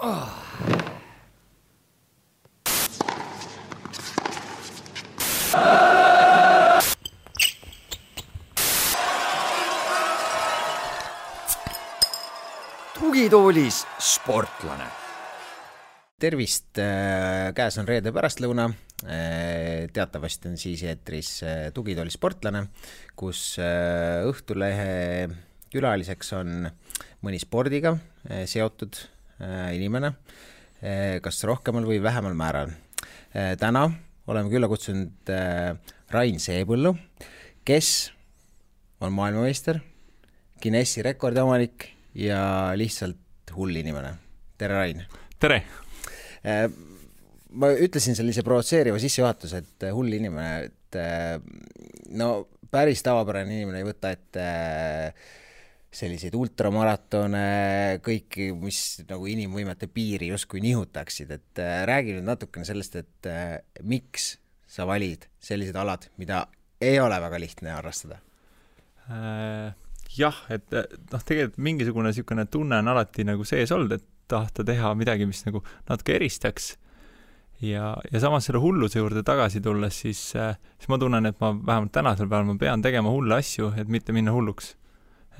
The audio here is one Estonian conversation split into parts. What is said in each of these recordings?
Tugitoolis sportlane. Tervist, käes on reede pärastlõuna. Teatavasti on siis eetris Tugitoolis sportlane, kus Õhtulehe külaliseks on mõni spordiga seotud inimene, kas rohkemal või vähemal määral. Täna oleme külla kutsunud Rain Seepõllu, kes on maailmameister, Guinessi rekordiomanik ja lihtsalt hull inimene. Tere, Rain! Tere! Ma ütlesin sellise provotseeriva sissejuhatuse, et hull inimene, et no päris tavapärane inimene ei võta ette selliseid ultramaratone, kõiki, mis nagu inimvõimete piiri justkui nihutaksid. Et räägi nüüd natukene sellest, et miks sa valid sellised alad, mida ei ole väga lihtne harrastada? Jah, et tegelikult mingisugune niisugune tunne on alati nagu sees olnud, et tahta teha midagi, mis nagu natuke eristaks. Ja samas selle hulluse juurde tagasi tulles, siis ma tunnen, et ma vähemalt tänasel päeval ma pean tegema hulle asju, et mitte minna hulluks.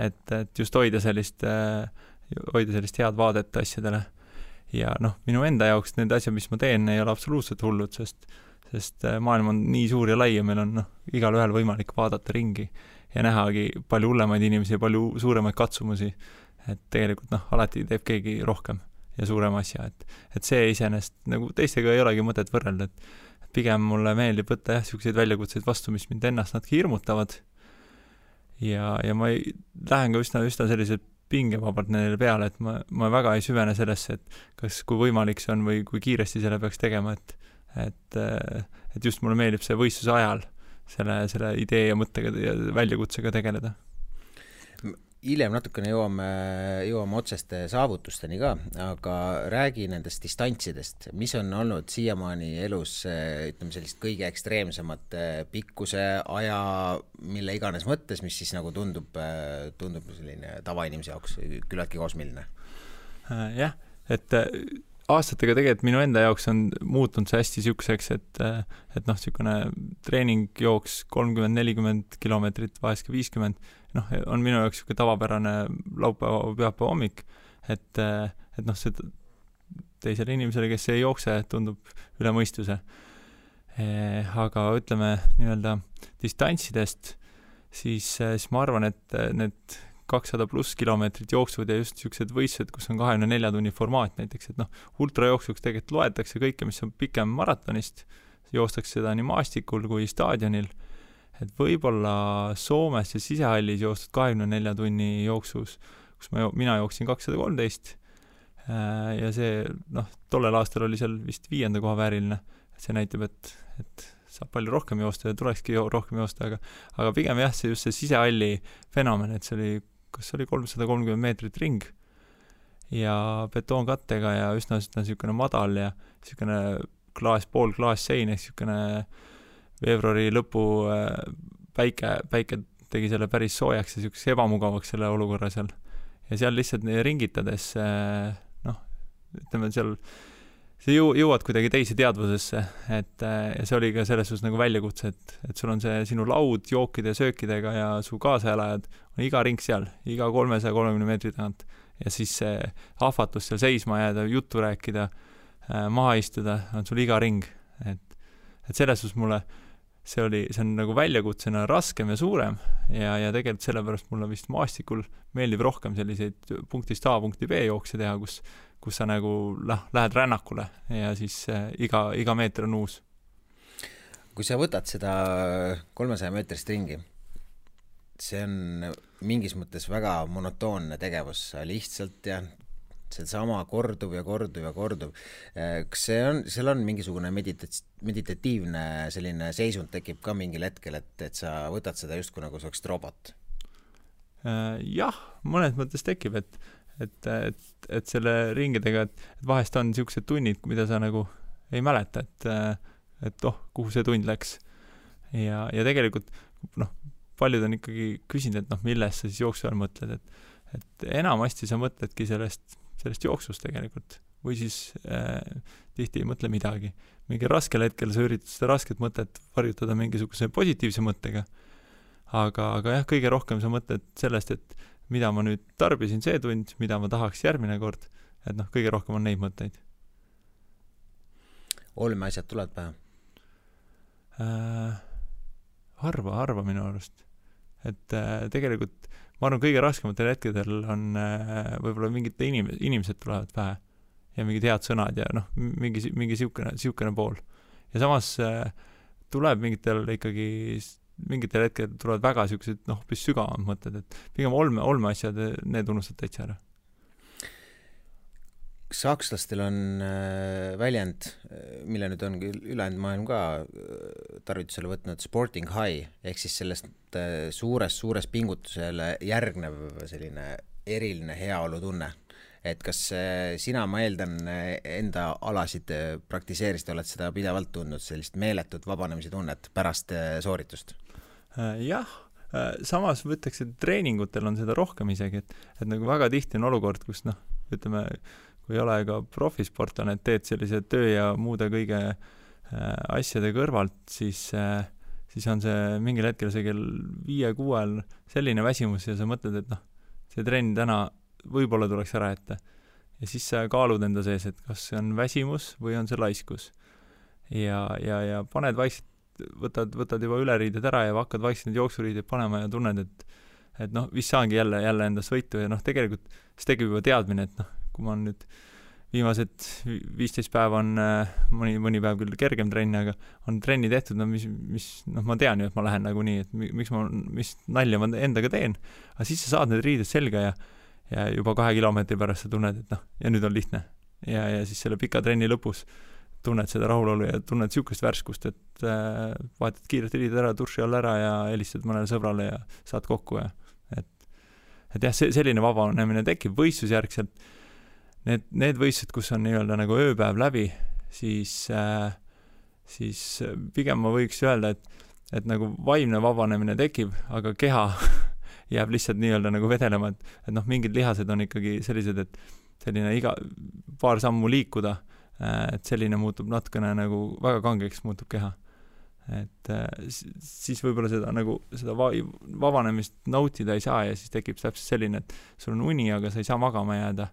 Et just hoida sellist head vaadet asjadele. Ja minu enda jaoks need asjad, mis ma teen, ei ole absoluutselt hullud, sest maailm on nii suur ja lai ja meil on igal ühel võimalik vaadata ringi ja nähagi palju hullemaid inimesi ja palju suuremaid katsumusi, et tegelikult alati teeb keegi rohkem ja suurem asja, et see iseenesest nagu teistega ei olegi mõtet võrrelda, et pigem mulle meeldib võtta selliseid väljakutseid vastu, mis mind ennast natuke hirmutavad ja ma lähen ka üsna sellised pingevabalt neile peale, et ma väga ei süvene sellesse, et kas kui võimalik see on või kui kiiresti selle peaks tegema, et just mulle meeldib see võistluse ajal selle idee ja mõttega ja väljakutsega tegeleda. Hiljem natukene jõuame otseste saavutusteni ka, aga räägi nendest distantsidest, mis on olnud siiamaani elus, ütleme sellist kõige ekstreemsemat pikkuse aja, mille iganes mõttes, mis siis nagu tundub selline tavainimese jaoks küllaltki kosmiline. Jah, et aastatega tegelikult minu enda jaoks on muutunud see hästi siukseks, et niisugune treeningjooks 30-40 kilomeetrit, vahest 50, on minu jaoks siuke tavapärane laupäeva hommik, et see teisele inimesele, kes ei jookse, tundub üle mõistuse. Aga ütleme nii-öelda distantsidest, siis ma arvan, et need 200 pluss kilomeetrit jooksud ja just niisugused võistlused, kus on 24 tunni formaat näiteks, et ultrajooksuks tegelikult loetakse kõike, mis on pikem maratonist, joostakse seda nii maastikul kui staadionil, et võib-olla Soomes ja sisehallis joostud 24 tunni jooksus, kus mina jooksin 213 ja see, tollel aastal oli seal vist 5. koha vääriline, et see näitab, et saab palju rohkem joosta ja tulekski rohkem joosta, aga pigem jah, see just see sisehalli fenomen, et see oli kas oli 330 meetrit ring ja betoonkattega ja üsna niisugune madal ja niisugune pool klaassein, niisugune veebruari lõpu päike tegi selle päris soojaks ja niisuguseks ebamugavaks selle olukorra seal. Ja seal lihtsalt ringitades, ütleme, see jõuad kuidagi teise teadvusesse, ja see oli ka selles suhtes nagu väljakutse, et sul on see sinu laud jookide ja söökidega ja su kaasaelajad on iga ring seal, iga 330 meetri tagant ja siis see ahvatus seal seisma jääda, juttu rääkida, maha istuda, on sul iga ring, et selles suhtes mulle see on nagu väljakutsena raskem ja suurem ja tegelikult sellepärast mulle vist maastikul meeldib rohkem selliseid punktist A punkti B jookse teha, kus sa nagu lähed rännakule ja siis iga meeter on uus. Kui sa võtad seda 300 meetrist ringi, see on mingis mõttes väga monotoonne tegevus, lihtsalt seesama kordub ja kordub ja kordub. Kas seal on mingisugune meditatiivne selline seisund tekib ka mingil hetkel, et sa võtad seda justkui nagu saaks robot? Jah, mõnes mõttes tekib, et selle ringidega, et vahest on niisugused tunnid, mida sa nagu ei mäleta, et kuhu see tund läks. Ja tegelikult, paljud on ikkagi küsinud, et milles sa siis jooksu ajal mõtled, et enamasti sa mõtledki sellest jooksust tegelikult. või siis tihti ei mõtle midagi. Mingi raskel hetkel sa üritad seda rasket mõtet varjutada mingisuguse positiivse mõttega, aga jah, kõige rohkem sa mõtled sellest, et mida ma nüüd tarbisin see tund, mida ma tahaks järgmine kord, et noh, kõige rohkem on neid mõtteid. Olmeasjad tulevad pähe? Harva minu arust. Et tegelikult ma arvan, kõige raskematel hetkedel on võib-olla mingid inimesed tulevad pähe ja mingid head sõnad ja noh, mingi siukene pool. Ja samas tuleb mingitel hetkedel tulevad väga siuksed hoopis sügavamad mõtted, et pigem olmeasjad, need unustad täitsa ära. Sakslastel on väljend, mille nüüd on ülejäänud maailm ka tarvitusele võtnud, sporting high, ehk siis sellest suures pingutusele järgnev selline eriline heaolutunne. Et kas sina, ma eeldan, enda alasid praktiseerisid, oled seda pidevalt tundnud, sellist meeletut vabanemise tunnet pärast sooritust? Jah, samas võtaks, et treeningutel on seda rohkem isegi, et nagu väga tihti on olukord, kus ütleme, kui ei ole ka profisportlane, et teed sellise töö ja muude kõige asjade kõrvalt, siis on see mingil hetkel see kell 5-6 selline väsimus ja sa mõtled, et see trenn täna võib-olla tuleks ära ette. Ja siis sa kaalud enda sees, et kas see on väsimus või on see laiskus. Ja paned vaikselt, võtad juba üleriided ära ja hakkad vaikselt need jooksuriided panema ja tunned, et vist saangi jälle endast võitu ja tegelikult see tegib juba teadmine, et kui ma nüüd viimased 15 päeva on mõni päev küll kergem trenn, aga on trenni tehtud, ma tean ju, et ma lähen nagu nii, et mis nalja ma endaga teen, aga siis sa saad need riided selga ja juba 2 kilomeetri pärast sa tunned, et ja nüüd on lihtne. Ja siis selle pika trenni lõpus tunned seda rahulolu ja tunned siukest värskust, et vaatad kiirelt riided ära, turši all ära ja helistad mõnele sõbrale ja saad kokku. Et jah, selline vabanemine tekib võistlusjärgselt. Need võistlused, kus on nii-öelda nagu ööpäev läbi, siis pigem ma võiks öelda, et nagu vaimne vabanemine tekib, aga keha jääb lihtsalt nii-öelda nagu vedelema, et mingid lihased on ikkagi sellised, et selline iga paar sammu liikuda, et selline muutub natukene nagu väga kangeks muutub keha. Et siis võib-olla seda vabanemist nautida ei saa ja siis tekib täpselt selline, et sul on uni, aga sa ei saa magama jääda.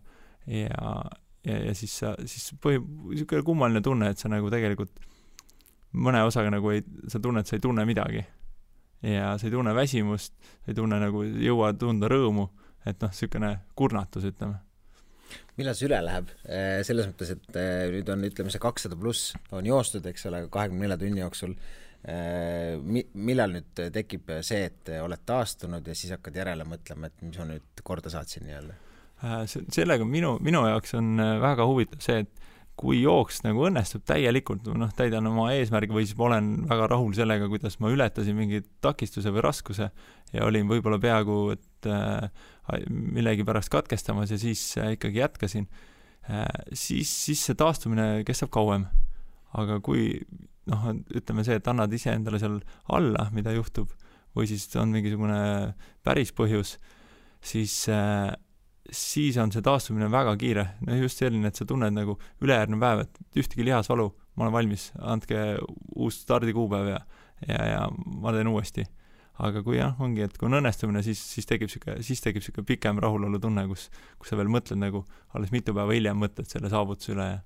Ja siis niisugune kummaline tunne, et sa nagu tegelikult mõne osaga nagu sa tunned, et sa ei tunne midagi. Ja sa ei tunne väsimust, sa ei tunne nagu jõua tunda rõõmu, et niisugune kurnatus, ütleme. Millal see üle läheb? Selles mõttes, et nüüd on, ütleme, see 200+ on joostud, eks ole, 24 tunni jooksul. Millal nüüd tekib see, et oled taastunud ja siis hakkad järele mõtlema, et mis ma nüüd korda saatsin nii-öelda? Sellega minu jaoks on väga huvitav see, et kui jooks nagu õnnestub täielikult, täidan oma eesmärgi või siis ma olen väga rahul sellega, kuidas ma ületasin mingi takistuse või raskuse ja olin võib-olla peaaegu, et millegi pärast katkestamas ja siis ikkagi jätkasin, siis see taastumine kestab kauem. Aga kui, ütleme see, et annad ise endale seal alla, mida juhtub, või siis on mingisugune päris põhjus, siis on see taastumine väga kiire. Just selline, et sa tunned nagu ülejärgnev päev, et ühtegi lihasvalu, ma olen valmis, andke uus stardikuupäev ja ma teen uuesti. Aga kui ongi, et kui on õnnestumine, siis tekib siuke pikem rahulolu tunne, kus sa veel mõtled nagu alles mitu päeva hiljem mõtled selle saavutuse üle ja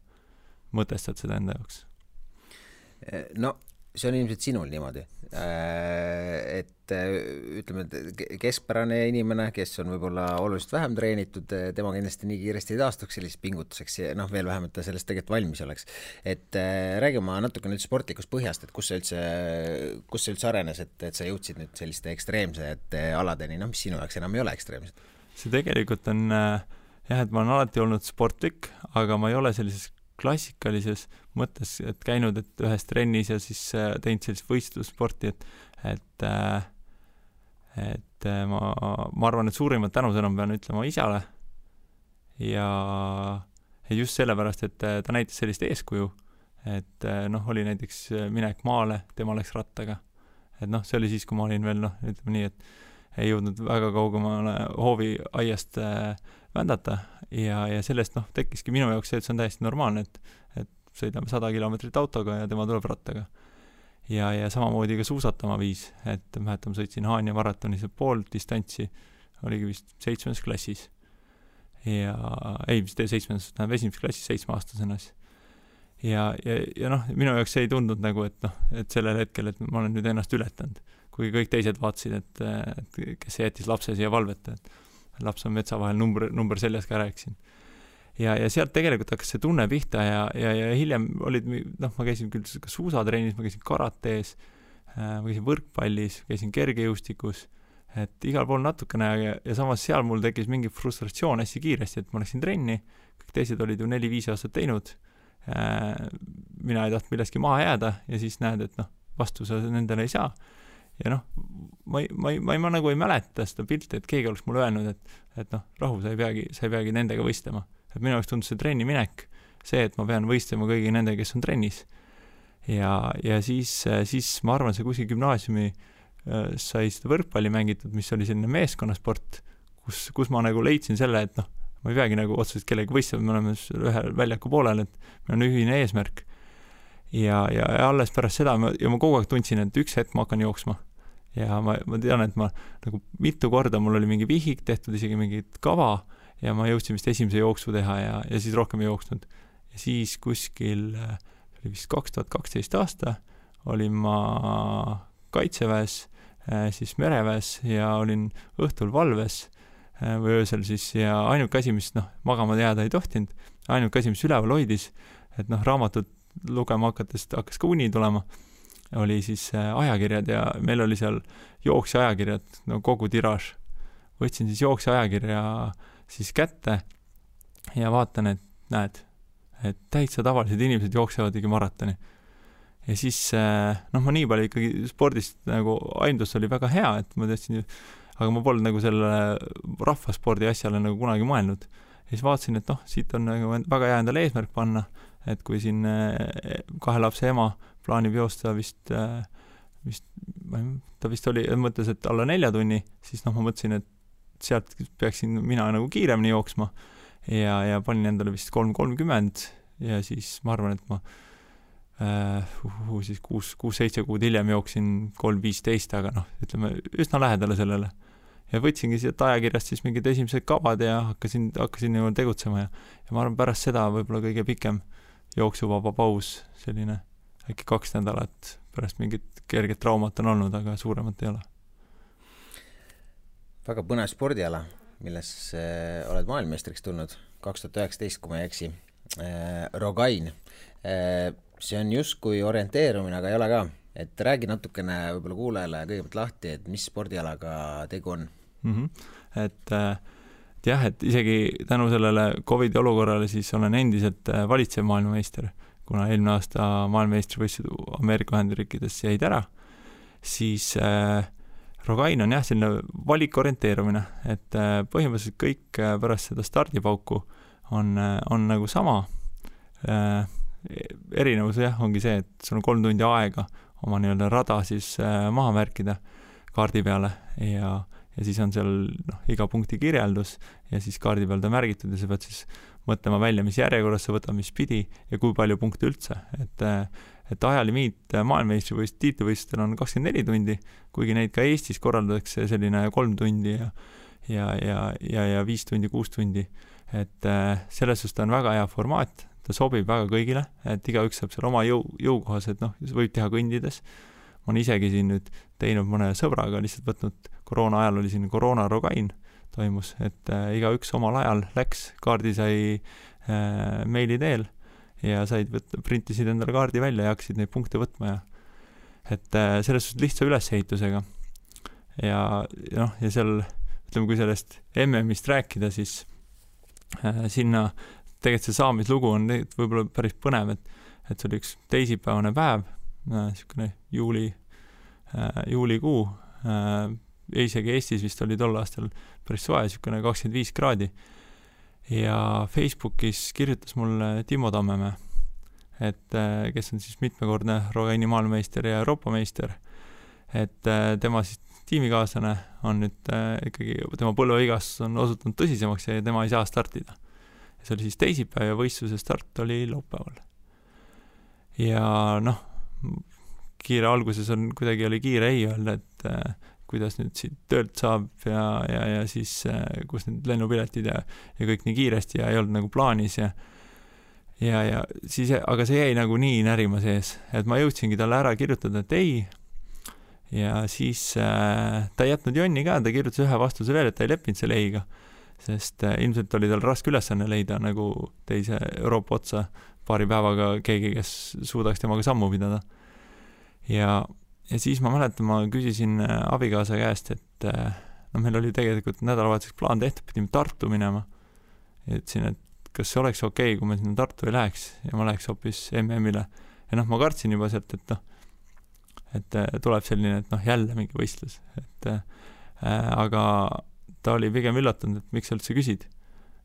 mõtestad seda enda jaoks. No, see on ilmselt sinul niimoodi. Et ütleme, keskpärane inimene, kes on võib-olla oluliselt vähem treenitud, tema kindlasti nii kiiresti ei taastuks selliseks pingutuseks ja veel vähemalt ta sellest tegelikult valmis oleks. Et räägime natuke nüüd sportlikust põhjast, et kus see üldse arenes, et sa jõudsid nüüd selliste ekstreemsete aladeni, mis sinu jaoks enam ei ole ekstreemsed? See tegelikult on et ma olen alati olnud sportlik, aga ma ei ole sellises klassikalises mõttes, et käinud et ühes trennis ja siis teinud sellist võistlussporti, et ma arvan, et suurimad tänusõnum pean ütlema isale ja just sellepärast, et ta näitas sellist eeskuju, et oli näiteks minek maale, tema läks rattaga, et see oli siis, kui ma olin veel ütleme nii, et ei jõudnud väga kaugemale hoovi aiast vändata ja sellest tekkiski minu jaoks see, et see on täiesti normaalne, et sõidame 100 kilomeetrit autoga ja tema tuleb rattaga. Ja samamoodi ka suusatama viis, et mäletan, sõitsin Haanja maratonis pool distantsi, oligi vist 7. klassis. Vist 7. klassis 7-aastasena. Ja minu jaoks ei tundnud nagu, et sellel hetkel, et ma olen nüüd ennast ületanud, kui kõik teised vaatasid, et kes jättis lapse siia valveta, et laps on metsa vahel, number seljas ka rääkisin. Ja sealt tegelikult hakkas see tunne pihta ja hiljem olid, ma käisin küll suusatrennis, ma käisin karatees, ma käisin võrkpallis, käisin kergejõustikus, et igal pool natukene ja samas seal mul tekkis mingi frustratsioon hästi kiiresti, et ma läksin trenni, kõik teised olid ju 4-5 aastat teinud, mina ei tahtnud millestki maha jääda ja siis näed, et vastu sa nendele ei saa. Ja ma nagu ei mäleta seda pilti, et keegi oleks mulle öelnud, et rahu, sa ei peagi nendega võistlema. Et minu jaoks tundus see trenni minek, see, et ma pean võistlema kõigi nendega, kes on trennis. Ja siis ma arvan, see kuskil gümnaasiumi sai seda võrkpalli mängitud, mis oli selline meeskonnasport, kus ma nagu leidsin selle, et ma ei peagi nagu otseselt kellegi võistlema, me oleme ühe väljaku poolel, et meil on ühine eesmärk. Ja alles pärast seda ma kogu aeg tundsin, et üks hetk ma hakkan jooksma. Ja ma tean, et ma nagu mitu korda mul oli mingi vihik tehtud, isegi mingit kava, ja ma jõudsin vist esimese jooksu teha ja siis rohkem ei jooksnud. Ja siis kuskil, oli vist 2012 aasta, olin ma kaitseväes, siis mereväes ja olin õhtul valves või öösel siis ja ainuke asi, mis magama jääda ei tohtinud, ainuke asi, mis üleval hoidis, et raamatut lugema hakkas ka uni tulema, oli siis ajakirjad ja meil oli seal jooksja ajakirjad, kogu tiraaž. Võtsin siis jooksja ajakirja siis kätte ja vaatan, et näed, et täitsa tavalised inimesed jooksevadki maratoni. Ja siis, ma nii palju ikkagi spordist nagu aindus oli väga hea, et ma tõstsin, aga ma polnud nagu selle rahvaspordi asjale nagu kunagi mõelnud. Ja siis vaatasin, et siit on nagu väga hea endale eesmärk panna, et kui siin 2 lapse ema plaanib joosta ta vist oli, mõtles, et alla 4 tunni, siis ma mõtlesin, et sealt peaksin mina nagu kiiremini jooksma ja panin endale vist 3:30 ja siis ma arvan, et ma siis 6-7 kuud hiljem jooksin 3:15, aga ütleme üsna lähedale sellele. Ja võtsingi siit ajakirjast siis mingid esimesed kavad ja hakkasin nagu tegutsema ja ma arvan, pärast seda võib-olla kõige pikem jooksuvaba paus, selline äkki 2 nädalat pärast mingit kerget traumat on olnud, aga suuremat ei ole. Väga põnev spordiala, milles oled maailmameistriks tulnud 2019, kui ma ei eksi. Rogain. See on just kui orienteerumine, aga ei ole ka. Et räägi natukene võib-olla kuulajale kõigepealt lahti, et mis spordialaga tegu on? Et isegi tänu sellele COVID olukorrale siis olen endiselt valitsev maailmameister, kuna eelmine aasta maailmameistrivõistlused Ameerika Ühendriikides jäid ära, siis Rogain on selline valikorienteerumine, et põhimõtteliselt kõik pärast seda stardipauku on nagu sama. Erinevus ongi see, et sul on 3 tundi aega oma nii-öelda rada siis maha märkida kaardi peale ja siis on seal iga punkti kirjeldus ja siis kaardi peal ta märgitud ja sa pead siis mõtlema välja, mis järjekorras sa võtad, mis pidi ja kui palju punkte üldse. Et ajalimiit maailmameistrivõistluse tiitlivõistlustel on 24 tundi, kuigi neid ka Eestis korraldatakse selline 3 tundi ja 5 tundi, 6 tundi. Et selles suhtes ta on väga hea formaat, ta sobib väga kõigile, et igaüks saab seal oma jõukohas, et võib teha kõndides. Ma olen isegi siin nüüd teinud mõne sõbraga, lihtsalt võtnud koroona ajal oli siin koroona Rogain toimus, et igaüks omal ajal läks, kaardi sai meili teel ja printisid endale kaardi välja ja hakkasid neid punkte võtma ja et selles suhtes lihtsa ülesehitusega ja seal, ütleme, kui sellest MM-ist rääkida, siis sinna tegelikult see saamislugu on võib-olla päris põnev, et see oli üks teisipäevane päev, niisugune juulikuu, isegi Eestis vist oli tol aastal päris soe, niisugune 25 kraadi ja Facebookis kirjutas mulle Timo Tammemäe, et kes on siis mitmekordne Rogaini maailmameister ja Euroopa meister, et tema siis tiimikaaslane on nüüd ikkagi, tema põlveigas on osutunud tõsisemaks ja tema ei saa startida. See oli siis teisipäev ja võistluse start oli laupäeval. Ja noh, kiire alguses kuidagi oli kiire ei öelda, et kuidas nüüd siit töölt saab ja siis kus need lennupiletid ja kõik nii kiiresti ja ei olnud nagu plaanis ja siis, aga see jäi nagu nii närima sees, et ma jõudsingi talle ära kirjutada, et ei, ja siis ta ei jätnud jonni ka, ta kirjutas ühe vastuse veel, et ta ei leppinud selle eiga, sest ilmselt oli tal raske ülesanne leida nagu teise Euroopa otsa paari päevaga keegi, kes suudaks temaga sammu pidada. Ja siis ma mäletan, ma küsisin abikaasa käest, et meil oli tegelikult nädalavahetuseks plaan tehtud, pidime Tartu minema. Ja ütlesin, et kas see oleks okei, kui me sinna Tartu ei läheks ja ma läheks hoopis MM-ile. Ja ma kartsin juba sealt, et tuleb selline, et jälle mingi võistlus. Aga ta oli pigem üllatunud, et miks sa üldse küsid.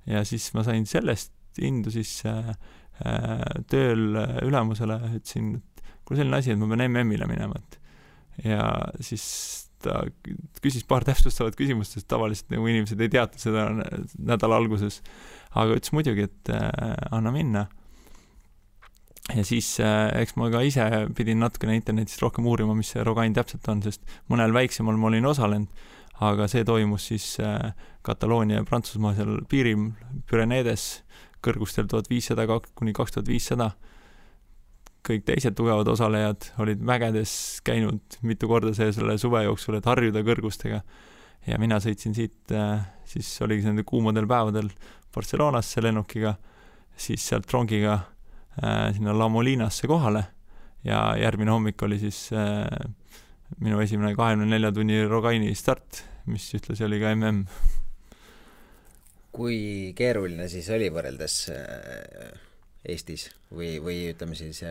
Ja siis ma sain sellest indu siis tööl ülemusele, ütlesin, et kui selline asi, et ma pean MM-ile minema. Ja siis ta küsis paar täpsustavat küsimust, sest tavaliselt nagu inimesed ei teata seda nädala alguses. Aga ütles muidugi, et anna minna. Ja siis eks ma ka ise pidin natukene internetist rohkem uurima, mis see Rogain täpselt on, sest mõnel väiksemal ma olin osalenud, aga see toimus siis Kataloonia ja Prantsusmaa seal piiril Pyreneedes kõrgustel 1500–2500. Kõik teised tugevad osalejad olid mägedes käinud mitu korda selle suve jooksul, et harjuda kõrgustega. Ja mina sõitsin siit, siis oligi nende kuumadel päevadel Barcelonasse lennukiga, siis sealt rongiga sinna La Molinasse kohale ja järgmine hommik oli siis minu esimene 24 tunni Rogaini start, mis ühtlasi oli ka MM. Kui keeruline siis oli võrreldes Eestis või ütleme siis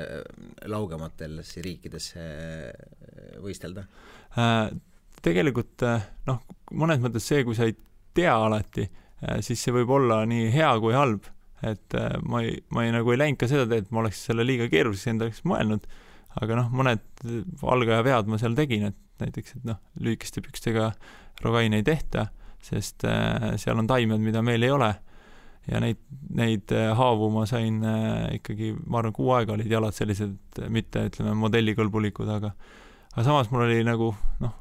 laugematel riikides võistelda? Tegelikult mõnes mõttes see, kui sa ei tea alati, siis see võib olla nii hea kui halb, et ma ei läinud ka seda teed, et ma oleks selle liiga keeruliseks endaks mõelnud, aga mõned algaja vead ma seal tegin, et näiteks, et lühikeste pükstega Rogaini ei tehta, sest seal on taimed, mida meil ei ole ja neid haavu ma sain ikkagi, ma arvan, 6 aega olid jalad sellised, mitte ütleme modellikõlbulikud, aga samas mul oli nagu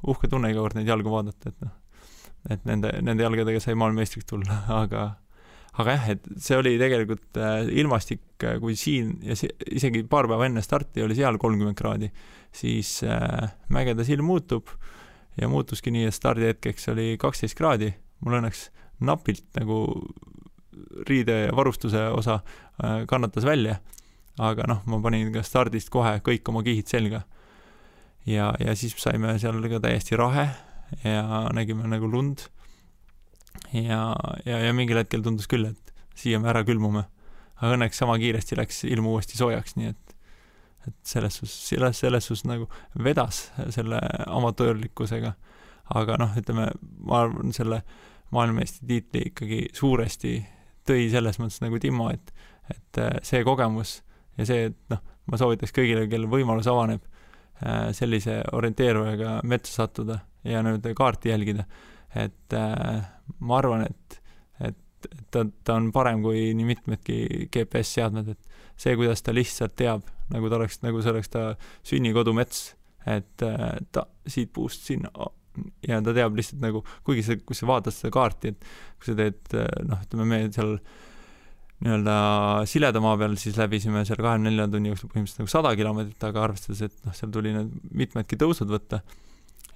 uhke tunne iga kord neid jalgu vaadata, et nende jalgadega sai maailmeistriks tulla, aga jah, et see oli tegelikult ilmastik, kui siin ja isegi paar päeva enne starti oli seal 30 kraadi, siis mägede silm muutub ja muutuski nii, et stardihetkeks oli 12 kraadi. Mul õnneks napilt nagu riide ja varustuse osa kannatas välja, aga ma panin ka stardist kohe kõik oma kihid selga. Ja siis saime seal ka täiesti rahe ja nägime nagu lund. Ja mingil hetkel tundus küll, et siia me ära külmume. Aga õnneks sama kiiresti läks ilm uuesti soojaks, nii et selles sus nagu vedas selle amatöörlikkusega. Aga ütleme, ma arvan, selle maailmameistri tiitli ikkagi suuresti tõi selles mõttes nagu Timmo, et see kogemus ja see, et ma soovitaks kõigile, kelle võimalus avaneb sellise orienteerujaga metsa sattuda ja nüüd kaarti jälgida, et ma arvan, et ta on parem kui nii mitmedki GPS-seadmed, et see, kuidas ta lihtsalt teab, nagu see oleks ta sünnikodu mets, et ta siit puust sinna ja ta teab lihtsalt nagu, kuigi kui sa vaatad seda kaarti, et kui sa teed, ütleme me seal nii-öelda sileda maa peal, siis läbisime seal 24 tunni jooksul põhimõtteliselt nagu 100 kilomeetrit, aga arvestades, et seal tuli need mitmedki tõusud võtta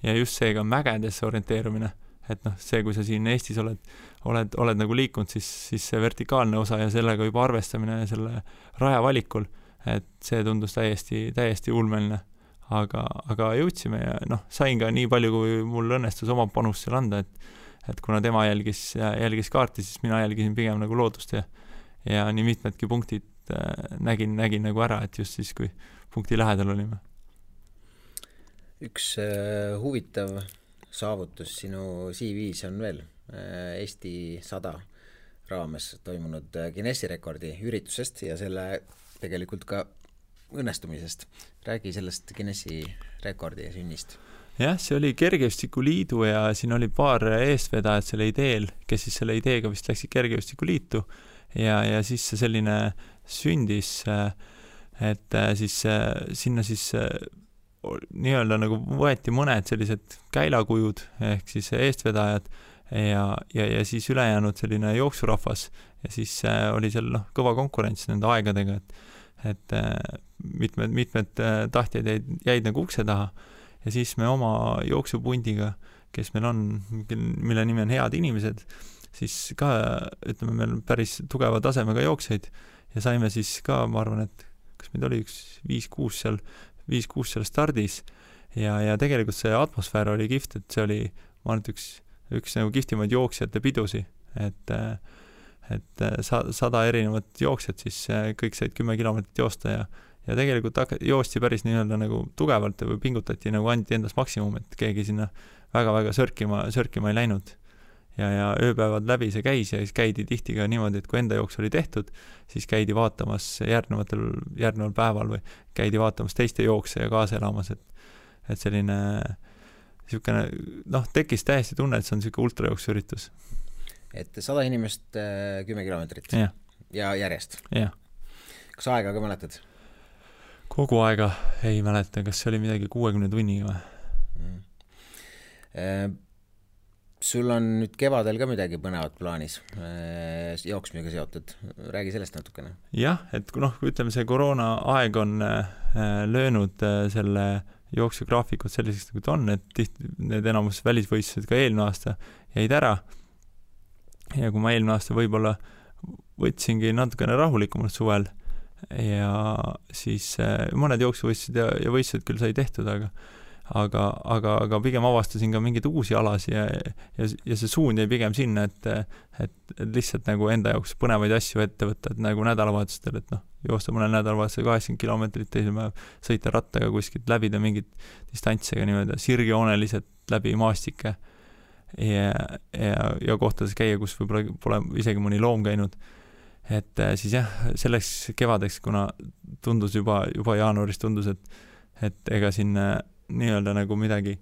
ja just seega mägedesse orienteerumine, et see, kui sa siin Eestis oled nagu liikunud, siis see vertikaalne osa ja sellega juba arvestamine ja selle raja valikul, et see tundus täiesti ulmeline, aga jõudsime ja sain ka nii palju, kui mul õnnestus oma panust seal anda, et kuna tema jälgis kaarti, siis mina jälgisin pigem nagu loodust ja nii mitmedki punktid nägin nagu ära, et just siis, kui punkti lähedal olime. Üks huvitav saavutus sinu CV-s on veel Eesti 100 raames toimunud Guinessi rekordi üritusest ja selle tegelikult ka õnnestumisest. Räägi sellest Guinessi rekordi sünnist. jah, see oli Kergejõustikuliidu ja siin oli paar eestvedajat selle ideel, kes siis selle ideega vist läksid Kergejõustikuliitu ja siis see selline sündis, et siis sinna siis nii-öelda nagu võeti mõned sellised käilakujud ehk siis eestvedajad ja siis ülejäänud selline jooksurahvas ja siis oli seal kõva konkurents nende aegadega, et mitmed tahtjad jäid nagu ukse taha ja siis me oma jooksupundiga, kes meil on, mille nimi on Head inimesed, siis ka, ütleme, meil päris tugeva tasemega jookseid ja saime siis ka, ma arvan, et kas meid oli üks 5-6 seal stardis ja tegelikult see atmosfäär oli kihvt, et see oli, ma arvan, et üks nagu kihvtimaid jooksjate pidusi, et 100 erinevat jooksjat, siis kõik said 10 kilomeetrit joosta ja tegelikult joosti päris nii-öelda nagu tugevalt või pingutati nagu andi endast maksimum, et keegi sinna väga-väga sörkima ei läinud. Ja ööpäevad läbi see käis ja siis käidi tihti ka niimoodi, et kui enda jooks oli tehtud, siis käidi vaatamas järgneval päeval või käidi vaatamas teiste jookse ja kaasa elamas, et selline niisugune, tekkis täiesti tunne, et see on niisugune ultrajooksuüritus. Et 100 inimest 10 kilomeetrit ja järjest? Jah. Kas aega ka mäletad? Kogu aega ei mäleta, kas see oli midagi 60 tunniga või? Sul on nüüd kevadel ka midagi põnevat plaanis jooksmisega seotud. Räägi sellest natukene. Jah, et ütleme, see koroona aeg on löönud selle jooksugraafikut selliseks, nagu ta on, et need enamus välisvõistlused ka eelmine aasta jäid ära. Ja kui ma eelmine aasta võib-olla võtsingi natukene rahulikumalt suvel ja siis mõned jooksuvõistlused ja võistlused küll sai tehtud, aga pigem avastasin ka mingeid uusi alasi ja see suund jäi pigem sinna, et lihtsalt nagu enda jaoks põnevaid asju ette võtta, et nagu nädalavahetustel, et joosta mõnel nädalavahetusel 80 kilomeetrit, teisel päev sõita rattaga kuskilt läbida mingit distantsega niimoodi sirgjooneliselt läbi maastike ja kohtades käia, kus võib-olla pole isegi mõni loom käinud. Et siis jah, selleks kevadeks, kuna tundus juba jaanuaris tundus, et ega siin nii-öelda nagu midagi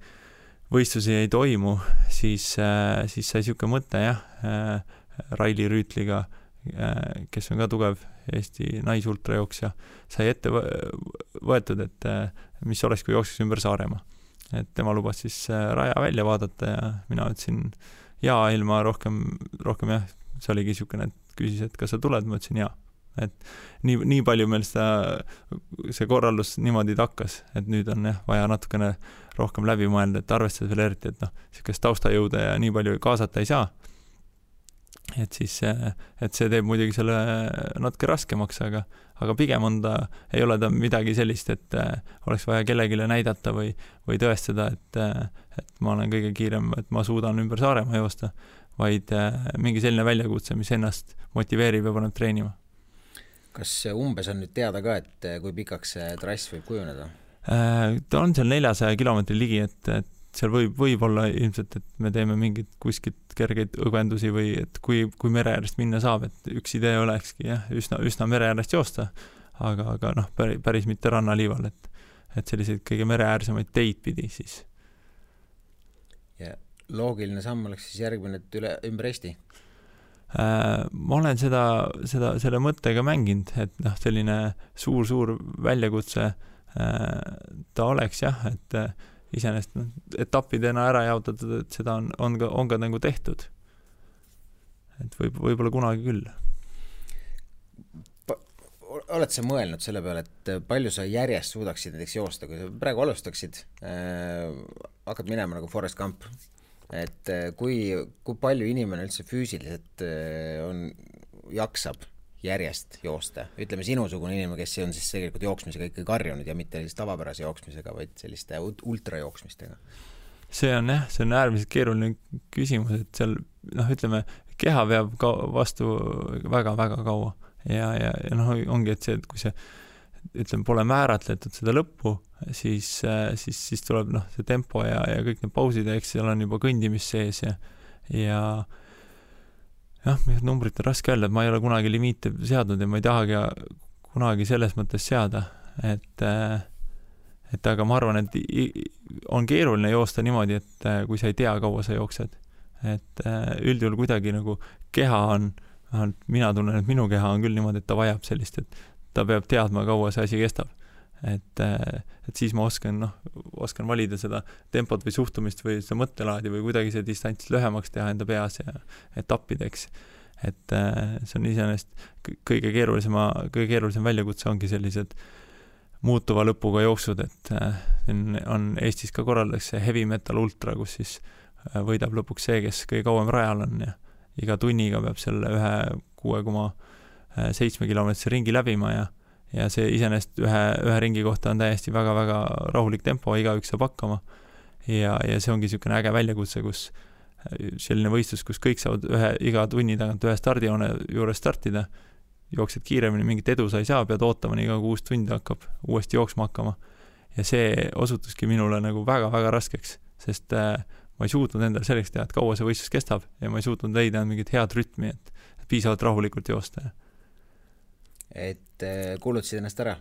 võistlusi ei toimu, siis sai niisugune mõte Raili Rüütliga, kes on ka tugev Eesti naisultrajooksja, sai ette võetud, et mis oleks, kui jookseks ümber Saaremaa. Et tema lubas siis raja välja vaadata ja mina ütlesin ilma rohkem jah, see oligi niisugune, et küsis, et kas sa tuled, ma ütlesin jaa. Et nii palju meil see korraldus niimoodi takkas, et nüüd on vaja natukene rohkem läbi mõelda, et arvestades veel eriti, et niisugust taustajõude ja nii palju kaasata ei saa. Et siis et see teeb muidugi selle natuke raskemaks, aga pigem ei ole ta midagi sellist, et oleks vaja kellegile näidata või tõestada, et ma olen kõige kiirem, et ma suudan ümber Saaremaa joosta, vaid mingi selline väljakutse, mis ennast motiveerib ja paneb treenima. Kas umbes on nüüd teada ka, et kui pikaks see trass võib kujuneda? Ta on seal 400 kilomeetri ligi, et seal võib olla ilmselt, et me teeme mingid kuskilt kergeid õgvendusi või et kui mere äärest minna saab, et üks idee olekski üsna mere äärest joosta, aga päris mitte rannaliival, et selliseid kõige mere äärsemaid teid pidi siis. Ja loogiline samm oleks siis järgmine, et ümber Eesti? Ma olen selle mõttega mänginud, et selline suur väljakutse ta oleks et iseenesest etappidena ära jaotatud, et seda on ka nagu tehtud. Et võib-olla kunagi küll. Oled sa mõelnud selle peale, et palju sa järjest suudaksid näiteks joosta, kui sa praegu alustaksid, hakkad minema nagu Forrest Gump, et kui palju inimene üldse füüsiliselt jaksab järjest joosta? Ütleme sinusugune inimene, kes on siis tegelikult jooksmisega ikkagi karjunud ja mitte tavapärase jooksmisega, vaid selliste ultrajooksmistega. See on äärmiselt keeruline küsimus, et seal, ütleme, keha veab vastu väga-väga kaua ja ongi, et see, et kui see ütleme, pole määratletud seda lõppu, siis tuleb see tempo ja kõik need pausid, eks seal on juba kõndimis sees ja numbrit on raske öelda, et ma ei ole kunagi limiite seadnud ja ma ei tahagi kunagi selles mõttes seada, et et aga ma arvan, et on keeruline joosta niimoodi, et kui sa ei tea, kaua sa jooksed. Et üldjuhul kuidagi nagu keha on, mina tunnen, et minu keha on küll niimoodi, et ta vajab sellist, et ta peab teadma, kaua see asi kestab. Et siis ma oskan valida seda tempot või suhtumist või seda mõttelaadi või kuidagi see distants lühemaks teha enda peas ja etappideks. Et see on iseenesest kõige keerulisem väljakutse ongi sellised muutuva lõpuga jooksud, et on Eestis ka korraldatakse heavy metal ultra, kus siis võidab lõpuks see, kes kõige kauem rajal on ja iga tunniga peab selle 6,7 kilomeetrise ringi läbima ja see iseenesest ühe ringi kohta on täiesti väga-väga rahulik tempo, igaüks saab hakkama ja see ongi niisugune äge väljakutse, kus selline võistlus, kus kõik saavad iga tunni tagant ühe stardijoone juures startida, jooksed kiiremini, mingit edu sa ei saa, pead ootama nii kaua, kui uus tund hakkab uuesti jooksma hakkama. Ja see osutuski minule nagu väga-väga raskeks, sest ma ei suutnud endale selleks teha, et kaua see võistlus kestab ja ma ei suutnud leida mingit head rütmi, et piisavalt rahulikult joosta. Et kuulutasid ennast ära?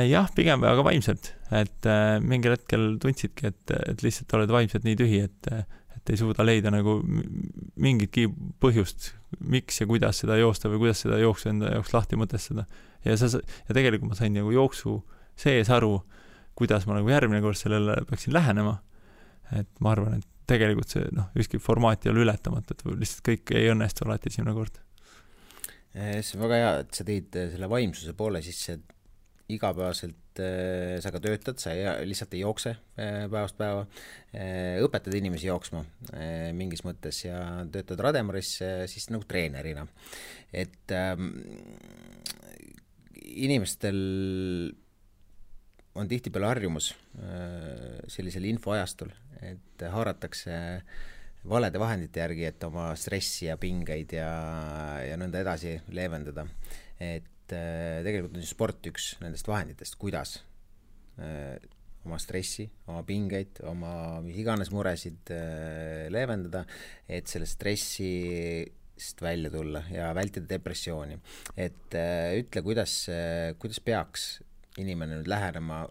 Jah, pigem väga vaimselt, et mingil hetkel tundsidki, et lihtsalt oled vaimselt nii tühi, et ei suuda leida nagu mingitki põhjust, miks ja kuidas seda joosta või kuidas seda jooksu enda jaoks lahti mõtestada. Ja tegelikult ma sain nagu jooksu sees aru, kuidas ma nagu järgmine kord sellele peaksin lähenema. Et ma arvan, et tegelikult see ükski formaat ei ole ületamata, et lihtsalt kõik ei õnnestu alati esimene kord. See on väga hea, et sa tõid selle vaimsuse poole sisse, et igapäevaselt sa ka töötad, sa lihtsalt ei jookse päevast päeva, õpetad inimesi jooksma mingis mõttes ja töötad Rademaris siis nagu treenerina. Et inimestel on tihtipeale harjumus sellisel infoajastul, et haaratakse valede vahendite järgi, et oma stressi ja pingeid ja nõnda edasi leevendada. Et tegelikult on sport üks nendest vahenditest, kuidas oma stressi, oma pingeid, oma mis iganes muresid leevendada, et selle stressist välja tulla ja vältida depressiooni. Et ütle, kuidas peaks inimene nüüd lähenema,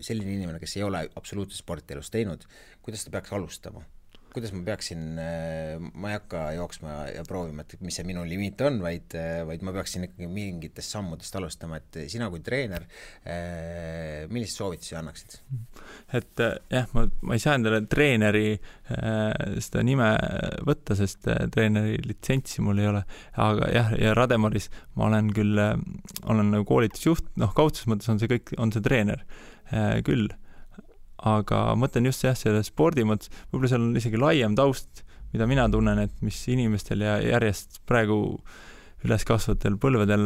selline inimene, kes ei ole absoluutselt sportielust teinud, kuidas ta peaks alustama? Kuidas ma peaksin, ma ei hakka jooksma ja proovima, et mis see minu limiit on, vaid ma peaksin ikkagi mingitest sammudest alustama, et sina kui treener, millist soovitusi annaksid? Et jah, ma ei saa endale treeneri seda nime võtta, sest treeneri litsentsi mul ei ole, aga jah, ja Rademaris ma olen küll, olen nagu koolitusjuht, kaudses mõttes on see treener küll. Aga mõtlen just selle spordi mõttes, võib-olla seal on isegi laiem taust, mida mina tunnen, et mis inimestel ja järjest praegu üles kasvatel põlvedel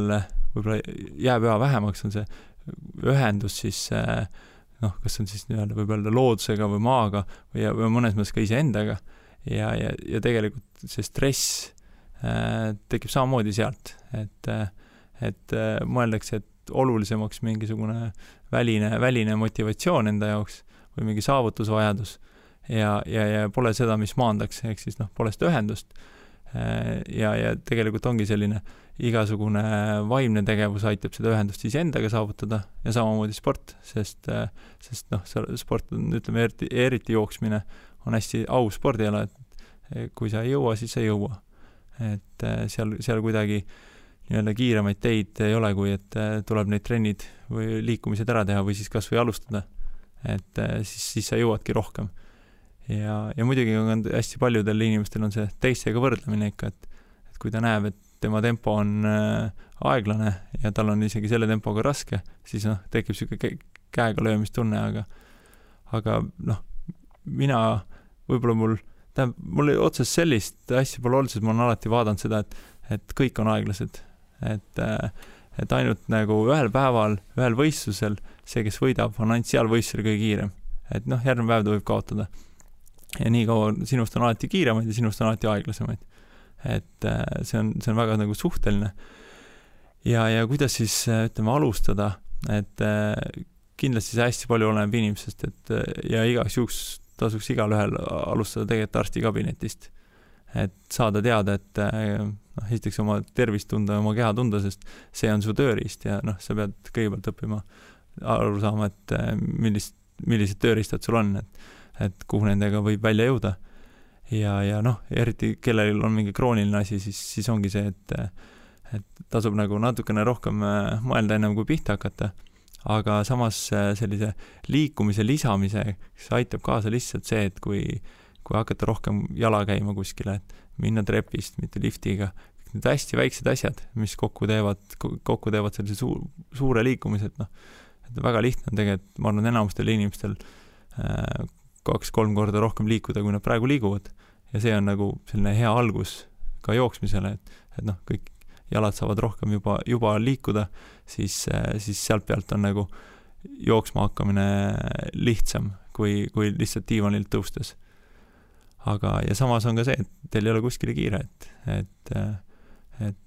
võib-olla jääb üha vähemaks, on see ühendus siis, kas on siis võib-olla loodusega või maaga või mõnes mõttes ka iseendaga ja tegelikult see stress tekib samamoodi sealt, et mõeldakse, et olulisemaks mingisugune väline motivatsioon enda jaoks või mingi saavutusvajadus ja pole seda, mis maandaks, ehk siis pole seda ühendust. Ja tegelikult ongi selline igasugune vaimne tegevus aitab seda ühendust siis endaga saavutada ja samamoodi sport, sest sport on, ütleme, eriti jooksmine on hästi au spordiala, et kui sa ei jõua, siis ei jõua. Et seal kuidagi nii-öelda kiiremaid teid ei ole, kui et tuleb neid trennid või liikumised ära teha või siis kas või alustada. Et siis sa jõuadki rohkem. Ja muidugi on hästi paljudel inimestel on see teistega võrdlemine ikka, et kui ta näeb, et tema tempo on aeglane ja tal on isegi selle tempoga raske, siis tekib siuke käega löömistunne, aga mina, võib-olla mul otses sellist asja pole olnud, sest ma olen alati vaadanud seda, et kõik on aeglased, et ainult nagu ühel päeval, ühel võistlusel see, kes võidab, on ainult seal võistlusel kõige kiirem. Et järgmine päev ta võib kaotada. Ja nii kaua sinust on alati kiiremaid ja sinust on alati aeglasemaid. Et see on väga nagu suhteline. Ja kuidas siis, ütleme, alustada, et kindlasti see hästi palju oleneb inimesest, ja igaks juhuks tasuks igal ühel alustada tegelikult arstikabinetist. Et saada teada, et esiteks oma tervist tunda, oma keha tunda, sest see on su tööriist ja sa pead kõigepealt õppima aru saama, et millised tööriistad sul on, et kuhu nendega võib välja jõuda. Ja noh, eriti kellel on mingi krooniline asi, siis ongi see, et tasub nagu natukene rohkem mõelda ennem kui pihta hakata, aga samas sellise liikumise lisamise aitab kaasa lihtsalt see, et kui hakata rohkem jala käima kuskile, et minna trepist, mitte liftiga, need hästi väiksed asjad, mis kokku teevad sellise suure liikumise, et noh, et väga lihtne on tegelikult, ma arvan, enamustel inimestel 2-3 korda rohkem liikuda, kui nad praegu liiguvad. Ja see on nagu selline hea algus ka jooksmisele, et noh, kõik jalad saavad rohkem juba liikuda, siis sealt pealt on nagu jooksma hakkamine lihtsam, kui lihtsalt diivanilt tõustes. Ja samas on ka see, et teil ei ole kuskile kiire, et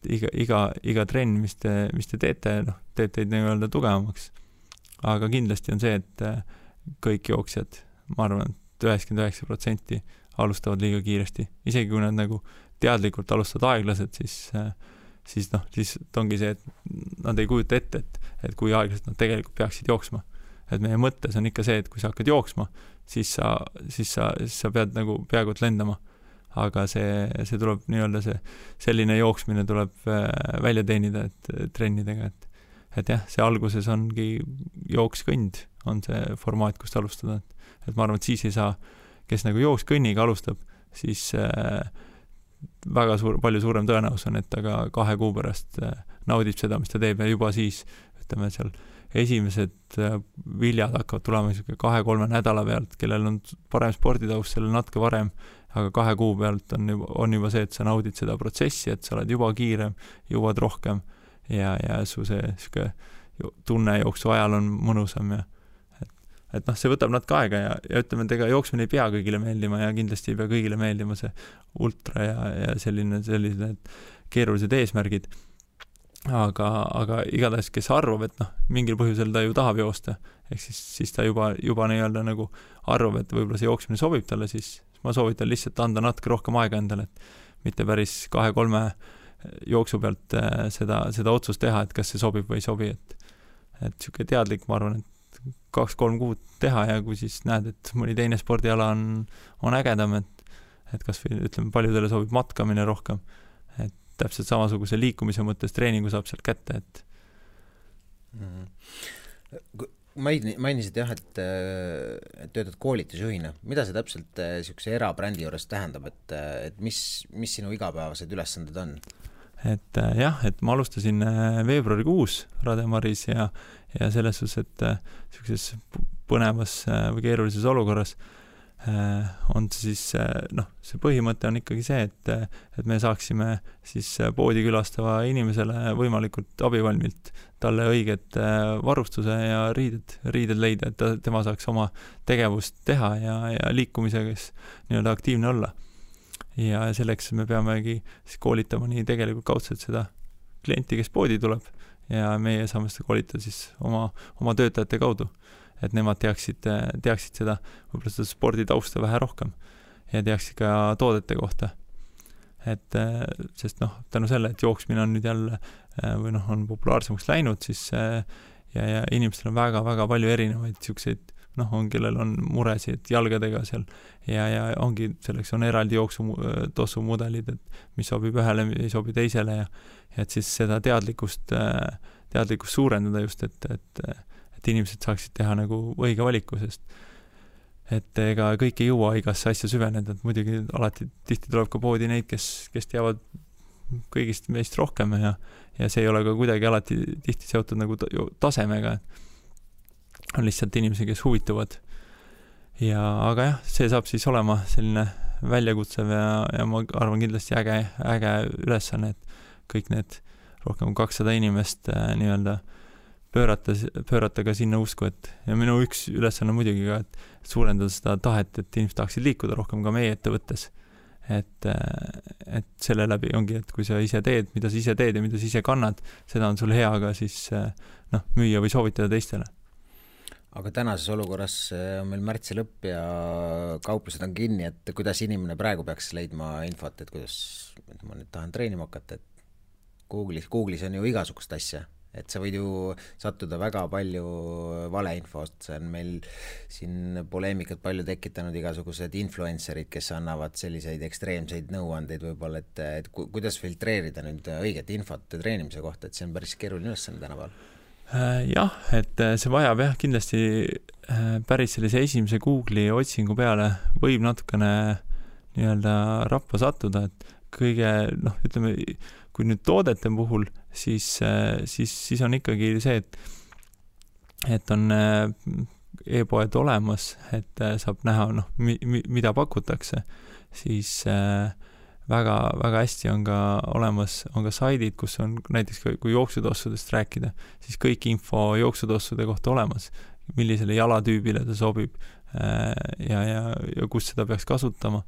iga trenn, mis te teete, noh, teeb teid nii-öelda tugevamaks. Aga kindlasti on see, et kõik jooksjad, ma arvan, et 99% alustavad liiga kiiresti. Isegi kui nad nagu teadlikult alustavad aeglased, siis ongi see, et nad ei kujuta ette, et kui aeglased nad tegelikult peaksid jooksma. Et meie mõttes on ikka see, et kui sa hakkad jooksma, siis sa pead nagu peaaegu lendama. Aga see tuleb nii-öelda selline jooksmine tuleb välja teenida, et trennidega, et jah, see alguses ongi jookskõnd, on see formaat, kust alustada. Et ma arvan, et siis ei saa, kes nagu jookskõnniga alustab, siis palju suurem tõenäosus on, et ta ka 2 kuu pärast naudib seda, mis ta teeb ja juba siis, ütleme seal, esimesed viljad hakkavad tulema 2-3 nädala pealt, kellel on parem sporditaust, sellel natuke varem, aga 2 kuu pealt on juba see, et sa naudid seda protsessi, et sa oled juba kiirem, jõuad rohkem ja su see tunne jooksu ajal on mõnusam ja et noh, see võtab natuke aega ja ütleme, et ega jooksmine ei pea kõigile meeldima ja kindlasti ei pea kõigile meeldima see ultra ja selline keerulised eesmärgid. Aga igatahes, kes arvab, et noh, mingil põhjusel ta ju tahab joosta, ehk siis ta juba nii-öelda nagu arvab, et võib-olla see jooksmine sobib talle, siis ma soovitan lihtsalt anda natuke rohkem aega endale, et mitte päris 2-3 jooksu pealt seda otsust teha, et kas see sobib või ei sobi, et siuke teadlik, ma arvan, et 2-3 kuud teha ja kui siis näed, et mõni teine spordiala on ägedam, et kas või ütleme, paljudele sobib matkamine rohkem, et täpselt samasuguse liikumise mõttes treeningu saab sealt kätte, et mainisid jah, et töötad koolitusjuhina. Mida see täpselt siukse erabrändi juures tähendab, et mis sinu igapäevased ülesanded on? Et jah, et ma alustasin veebruarikuus Rademaris ja selles suhtes, et siukses põnevas või keerulises olukorras on siis, noh, see põhimõte on ikkagi see, et me saaksime siis poodi külastava inimesele võimalikult abivalmilt talle õiget varustuse ja riided leida, et tema saaks oma tegevust teha ja liikumisega nii-öelda aktiivne olla. Ja selleks me peamegi koolitama nii tegelikult kaudselt seda klienti, kes poodi tuleb ja meie saame seda koolitada siis oma töötajate kaudu, et nemad teaksid seda, võib-olla seda sporditausta vähe rohkem ja teaksid ka toodete kohta. Et sest noh, tänu selle, et jooksmine on nüüd jälle või noh, on populaarsemaks läinud, siis ja inimestel on väga-väga palju erinevaid siukseid, noh, kellel on muresid jalgadega seal ja ongi, selleks on eraldi jooksu mudelid, et mis sobib ühele, ei sobi teisele ja et siis seda teadlikkust suurendada just, et inimesed saaksid teha nagu õige valiku, sest et ega kõik ei jõua igasse asja süveneda, et muidugi alati tihti tuleb ka poodi neid, kes teavad kõigist meist rohkem ja see ei ole ka kuidagi alati tihti seotud nagu tasemega, on lihtsalt inimesi, kes huvituvad. Aga jah, see saab siis olema selline väljakutsev ja ma arvan kindlasti äge ülesanne, et kõik need rohkem 200 inimest nii-öelda pöörata ka sinna usku, et ja minu üks ülesanne muidugi ka, et suurendada seda tahet, et inimesed tahaksid liikuda rohkem ka meie ettevõttes. Et selle läbi ongi, et kui sa ise teed, mida sa ise teed ja mida sa ise kannad, seda on sul hea ka siis müüa või soovitada teistele. Aga tänases olukorras on meil märtsi lõpp ja kauplused on kinni, et kuidas inimene praegu peaks leidma infot, et kuidas ma nüüd tahan treenima hakata, et Google'is on ju igasugust asja, et sa võid ju sattuda väga palju valeinfost, see on meil siin poleemikat palju tekitanud igasugused influencerid, kes annavad selliseid ekstreemseid nõuandeid võib-olla, et kuidas filtreerida nüüd õiget infot treenimise kohta, et see on päris keeruline ülesanne tänapäeval. Jah, et see vajab kindlasti päris sellise esimese Google'i otsingu peale võib natukene nii-öelda rappa sattuda, et kõige, ütleme, kui nüüd toodete puhul, siis on ikkagi see, et on e-poed olemas, et saab näha, mida pakutakse, siis väga, väga hästi on ka olemas, on ka saidid, kus on näiteks kui jooksutossudest rääkida, siis kõik info jooksutossude kohta olemas, millisele jalatüübile ta sobib ja kus seda peaks kasutama,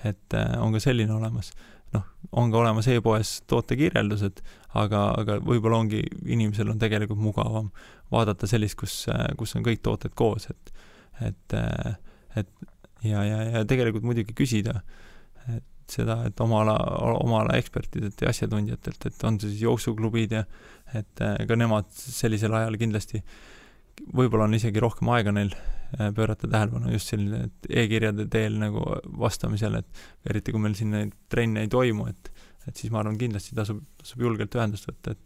et on ka selline olemas. On ka olemas e-poes tootekirjeldused, aga võib-olla ongi, inimesel on tegelikult mugavam vaadata sellist, kus on kõik tooted koos, et tegelikult muidugi küsida seda, et oma ala ekspertidelt ja asjatundjatelt, et on see siis jooksuklubid ja et ka nemad sellisel ajal kindlasti võib-olla on isegi rohkem aega neil pöörata tähelepanu just selline e-kirjade teel nagu vastamisel, et eriti kui meil siin neid trenne ei toimu, et siis ma arvan kindlasti tasub julgelt ühendust võtta,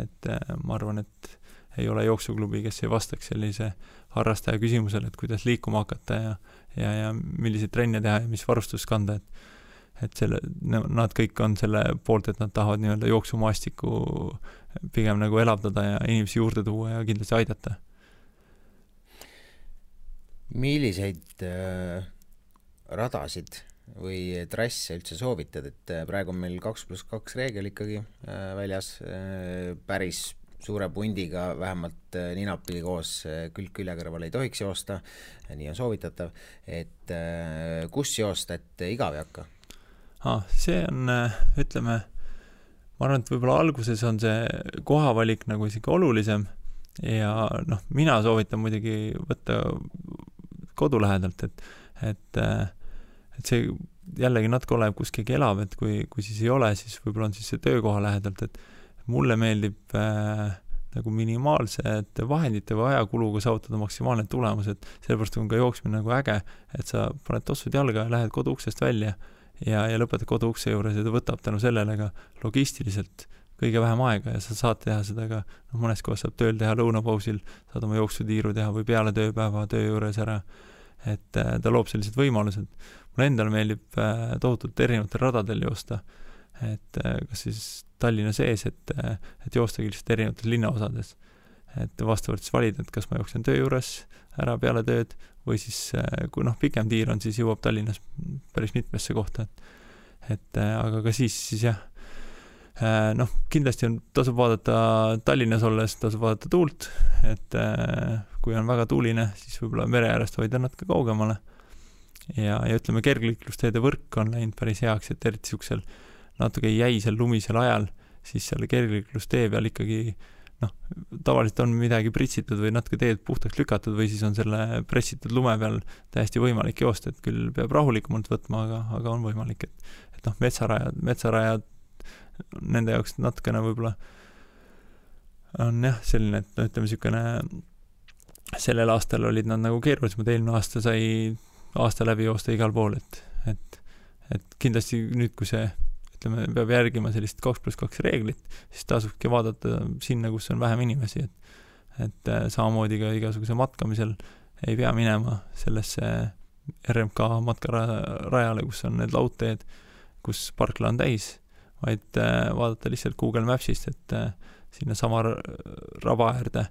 et ma arvan, et ei ole jooksuklubi, kes ei vastaks sellise harrastaja küsimusele, et kuidas liikuma hakata ja milliseid trenne teha ja mis varustus kanda, et nad kõik on selle poolt, et nad tahavad nii-öelda jooksumaastikku pigem nagu elavdada ja inimesi juurde tuua ja kindlasti aidata. Milliseid radasid või trasse üldse soovitad, et praegu on meil 2+2 reegel ikkagi väljas, päris suure pundiga, vähemalt ninapidi koos külg külje kõrval ei tohiks joosta, nii on soovitatav, et kus joosta, et igav ei hakka? See on, ütleme, ma arvan, et võib-olla alguses on see kohavalik nagu isegi olulisem ja mina soovitan muidugi võtta kodu lähedalt, et see jällegi natuke oleneb, kus keegi elab, et kui siis ei ole, siis võib-olla on siis see töökoha lähedalt, et mulle meeldib nagu minimaalsete vahendite või ajakuluga saavutada maksimaalne tulemus, et sellepärast on ka jooksmine nagu äge, et sa paned tossud jalga ja lähed koduuksest välja ja lõpetad koduukse juures ja ta võtab tänu sellele ka logistiliselt kõige vähem aega ja sa saad teha seda ka, mõnes kohas saab tööl teha lõunapausil, saad oma jooksutiiru teha või peale tööpäeva töö juures ära, et ta loob sellised võimalused. Mulle endale meeldib tohutult erinevatel radadel joosta, et kas siis Tallinna sees, et joostagi lihtsalt erinevates linnaosades, et vastavalt siis valida, et kas ma jooksen töö juures ära peale tööd või siis kui pikem tiir on, siis jõuab Tallinnas päris mitmesse kohta, et aga ka siis jah, kindlasti tasub vaadata Tallinnas olles, tasub vaadata tuult, et kui on väga tuuline, siis võib-olla mere äärest hoida natuke kaugemale ja ütleme, kergliiklusteede võrk on läinud päris heaks, et eriti siuksel natuke jäisel lumisel ajal, siis seal kergliiklustee peal ikkagi tavaliselt on midagi pritsitud või natuke teed puhtaks lükatud või siis on selle pressitud lume peal täiesti võimalik joosta, et küll peab rahulikumalt võtma, aga on võimalik, et metsarajad nende jaoks natukene võib-olla on jah selline, et ütleme sükene sellel aastal olid nad nagu keerulisemad, eelmine aasta sai aasta läbi joosta igal pool, et kindlasti nüüd, kui see ütleme, peab järgima sellist 2+2 reeglit, siis tasubki vaadata sinna, kus on vähem inimesi, et samamoodi ka igasuguse matkamisel ei pea minema sellesse RMK matkarajale, kus on need laudteed, kus parkla on täis, vaid vaadata lihtsalt Google Mapsist, et sinna sama raba äärde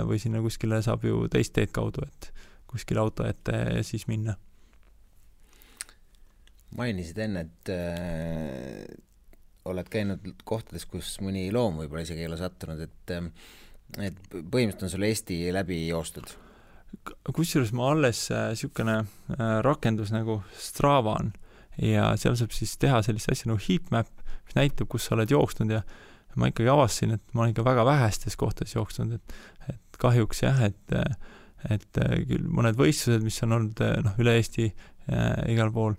või sinna kuskile saab ju teist teed kaudu, et kuskile auto ette ja siis minna. Mainisid enne, et oled käinud kohtades, kus mõni loom võib-olla isegi ei ole sattunud, et põhimõtteliselt on sul Eesti läbi joostud? Kusjuures ma alles sükene rakendus nagu Strava on ja seal saab siis teha sellist asja nagu heatmap, mis näitab, kus sa oled jooksnud ja ma ikkagi avastasin, et ma olen ikka väga vähestes kohtades jooksnud, et kahjuks jah, et küll mõned võistlused, mis on olnud üle Eesti igal pool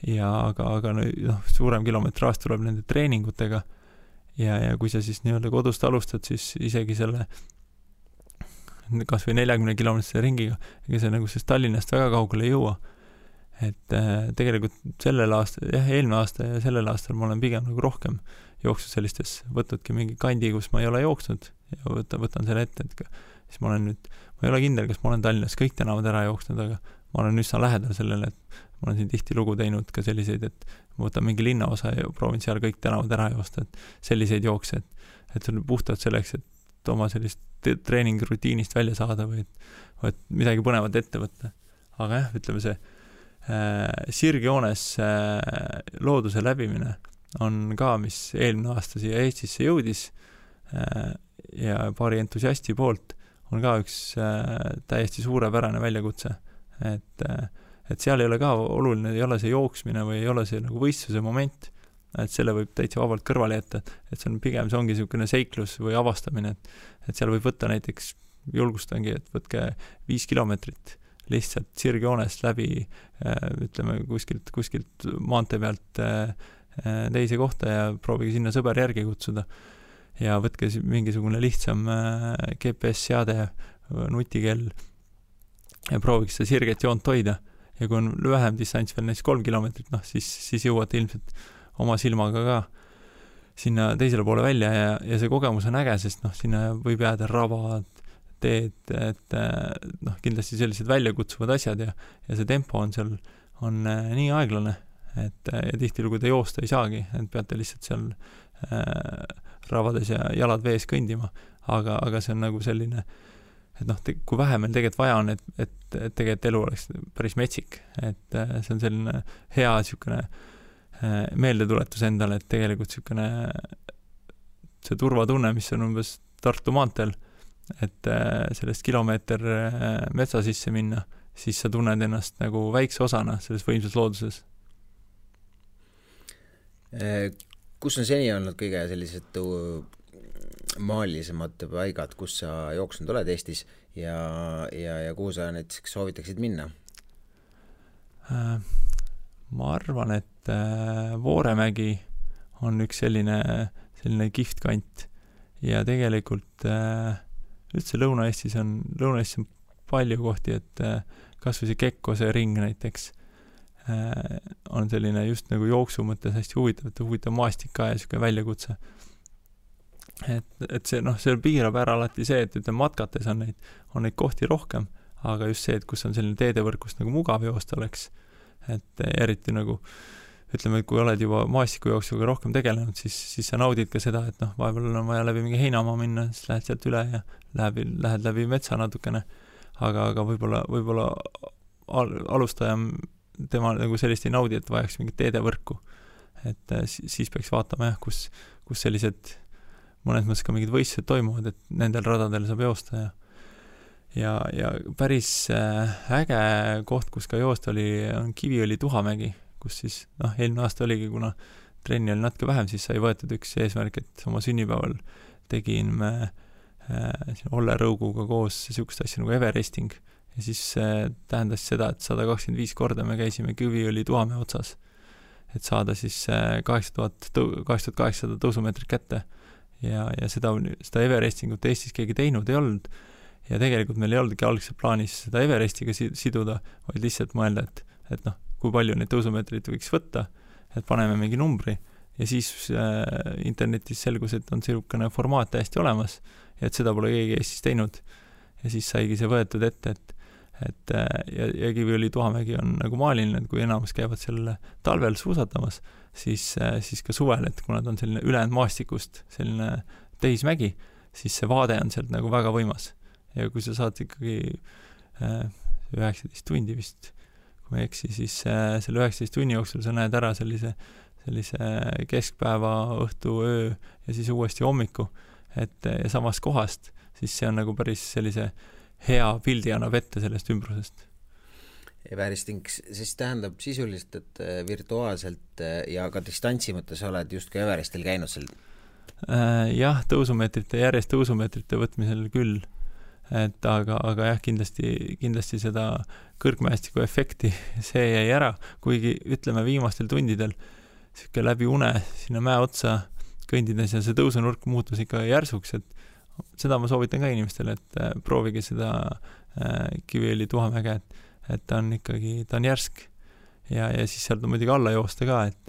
ja aga suurem kilometraaž tuleb nende treeningutega ja kui sa siis nii-öelda kodust alustad, siis isegi selle kas või 40 kilomeetrise ringiga, ega see nagu siis Tallinnast väga kaugele ei jõua. Et tegelikult eelmine aasta ja sellel aastal ma olen pigem nagu rohkem jooksnud sellistes, võtnudki mingi kandi, kus ma ei ole jooksnud ja võtan selle ette, et siis ma ei ole kindel, kas ma olen Tallinnas kõik tänavad ära jooksnud, aga ma olen üsna lähedal sellele, et ma olen siin tihti lugu teinud ka selliseid, et ma võtan mingi linnaosa ja proovin seal kõik tänavad ära joosta, et selliseid jookse, et see on puhtalt selleks, et oma sellist treeningrutiinist välja saada või et midagi põnevat ette võtta. Aga jah, ütleme see sirgjoones looduse läbimine on ka, mis eelmine aasta siia Eestisse jõudis ja paari entusiasti poolt on ka üks täiesti suurepärane väljakutse. Et seal ei ole ka oluline, ei ole see jooksmine või ei ole see nagu võistluse moment, et selle võib täitsa vabalt kõrvale jätta, et see on pigem, see ongi niisugune seiklus või avastamine, et seal võib võtta näiteks, julgustangi, et võtke 5 kilomeetrit lihtsalt sirgjoonest läbi, ütleme kuskilt maantee pealt teise kohta ja proovige sinna sõber järgi kutsuda ja võtke mingisugune lihtsam GPS-seade, nutikell ja prooviks seda sirget joont hoida ja kui on vähem distants veel näiteks 3 kilomeetrit, siis jõuate ilmselt oma silmaga ka sinna teisele poole välja ja see kogemus on äge, sest sinna võib jääda rabad, teed, et kindlasti sellised väljakutsuvad asjad ja see tempo on seal nii aeglane, et ja tihtilugu te joosta ei saagi, et peate lihtsalt seal rabades ja jalad vees kõndima, aga see on nagu selline, et kui vähe meil tegelikult vaja on, et tegelikult elu oleks päris metsik, et see on selline hea niisugune meeldetuletus endale, et tegelikult niisugune see turvatunne, mis on umbes Tartu maanteel, et sellest kilomeeter metsa sisse minna, siis sa tunned ennast nagu väikse osana selles võimsas looduses. Kus on seni olnud kõige sellised maalisemad paigad, kus sa jooksnud oled Eestis ja kuhu sa näiteks soovitaksid minna? Ma arvan, et Vooremägi on üks selline kihvt kant ja tegelikult üldse Lõuna-Eestis on palju kohti, et kas või see Kekkose ring näiteks on selline just nagu jooksu mõttes hästi huvitav maastik ka ja niisugune väljakutse. Et see piirab ära alati see, et matkates on neid kohti rohkem, aga just see, et kus on selline teedevõrkust nagu mugav joosta oleks, et eriti nagu ütleme, et kui oled juba maastikujooksuga rohkem tegelenud, siis sa naudid ka seda, et vahepeal on vaja läbi mingi heinamaa minna, siis lähed sealt üle ja lähed läbi metsa natukene, aga võib-olla alustajam tema nagu sellist ei naudi, et vajaks mingit teedevõrku. Et siis peaks vaatama kus sellised mõnes mõttes ka mingid võistlused toimuvad, et nendel radadel saab joosta ja päris äge koht, kus ka joosta on Kiviõli Tuhamägi, kus siis eelmine aasta oligi, kuna trenni oli natuke vähem, siis sai võetud üks eesmärk, et oma sünnipäeval tegin me Olle Rõuguga koos niisugust asja nagu Everesting ja siis tähendas seda, et 125 korda me käisime Kiviõli Tuhamäe otsas, et saada siis 8800 tõusumeetrit kätte ja seda Everestingut Eestis keegi teinud ei olnud ja tegelikult meil ei olnudki algselt plaanis seda Everestiga siduda, vaid lihtsalt mõelda, et kui palju neid tõusumeetrit võiks võtta, et paneme mingi numbri ja siis internetis selgus, et on selline formaat täiesti olemas ja et seda pole keegi Eestis teinud ja siis saigi see võetud ette, ja Kiviõli Tuhamägi on nagu maaliline, et kui enamus käivad selle talvel suusatamas, siis ka suvel, et kuna ta on selline ülejäänud maastikust selline tehismägi, siis see vaade on sealt nagu väga võimas ja kui sa saad ikkagi 19 tundi vist, kui ma ei eksi, siis selle 19 tunni jooksul sa näed ära sellise keskpäeva, õhtu, öö ja siis uuesti hommiku, et ja samast kohast, siis see on nagu päris sellise hea pildi annab ette sellest ümbrusest. Everesting siis tähendab sisuliselt, et virtuaalselt ja ka distantsi mõttes oled just ka Everestil käinud seal? Jah, järjest tõusumeetrite võtmisel küll, et aga jah, kindlasti seda kõrgmäestiku efekti see jäi ära, kuigi ütleme viimastel tundidel siuke läbi une sinna mäe otsa kõndides ja see tõusunurk muutus ikka järsuks, et seda ma soovitan ka inimestele, et proovige seda Kiviõli Tuhamäge, et ta on ikkagi, ta on järsk ja siis sealt on muidugi alla joosta ka, et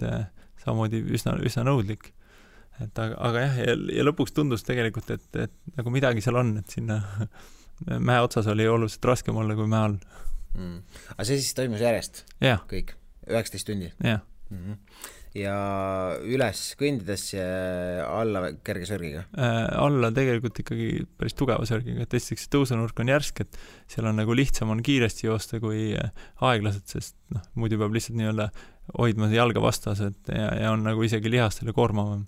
samamoodi üsna nõudlik. Et aga jah, ja lõpuks tundus tegelikult, et nagu midagi seal on, et sinna mäe otsas oli oluliselt raskem olla kui mäe all. Aga see siis toimus järjest? Ja. Kõik? 19 tundi? Ja. Ja üles kõndides ja alla kerge sörgiga? Alla tegelikult ikkagi päris tugeva sörgiga, et esiteks tõusunurk on järsk, et seal on nagu lihtsam on kiiresti joosta kui aeglased, sest muidu peab lihtsalt nii-öelda hoidma jalga vastas, et ja on nagu isegi lihastele koormavam.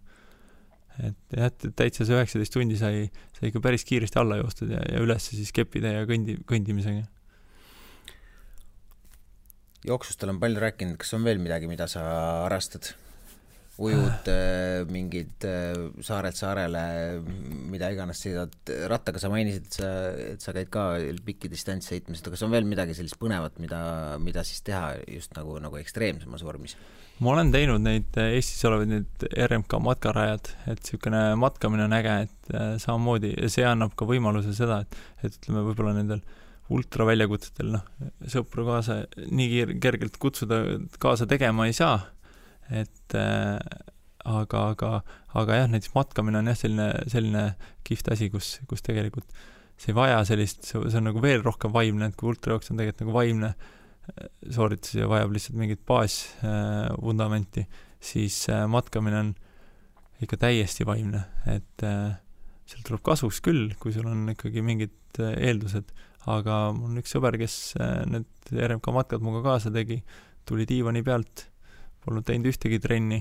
Et jah, täitsa see 19 tundi sai ikka päris kiiresti alla joostud ja üles siis keppida ja kõndimisega. Jooksust olen palju rääkinud, kas on veel midagi, mida sa harrastad? Ujud mingid saarelt saarele, mida iganes sõidad rattaga, sa mainisid, et sa käid ka pikki distants sõitmised, aga kas on veel midagi sellist põnevat, mida siis teha just nagu ekstreemsemas vormis? Ma olen teinud neid Eestis olevaid need RMK matkarajad, et niisugune matkamine on äge, et samamoodi ja see annab ka võimaluse seda, et ütleme võib-olla nendel ultraväljakutsetel sõpru kaasa nii kergelt kutsuda kaasa tegema ei saa, et aga jah, näiteks matkamine on jah selline kihvt asi, kus tegelikult see ei vaja sellist, see on nagu veel rohkem vaimne, et kui ultrajooks on tegelikult nagu vaimne sooritus ja vajab lihtsalt mingit baasvundamenti, siis matkamine on ikka täiesti vaimne, et seal tuleb kasuks küll, kui sul on ikkagi mingid eeldused, aga mul on üks sõber, kes need RMK matkad muga kaasa tegi, tuli diivani pealt, polnud teinud ühtegi trenni,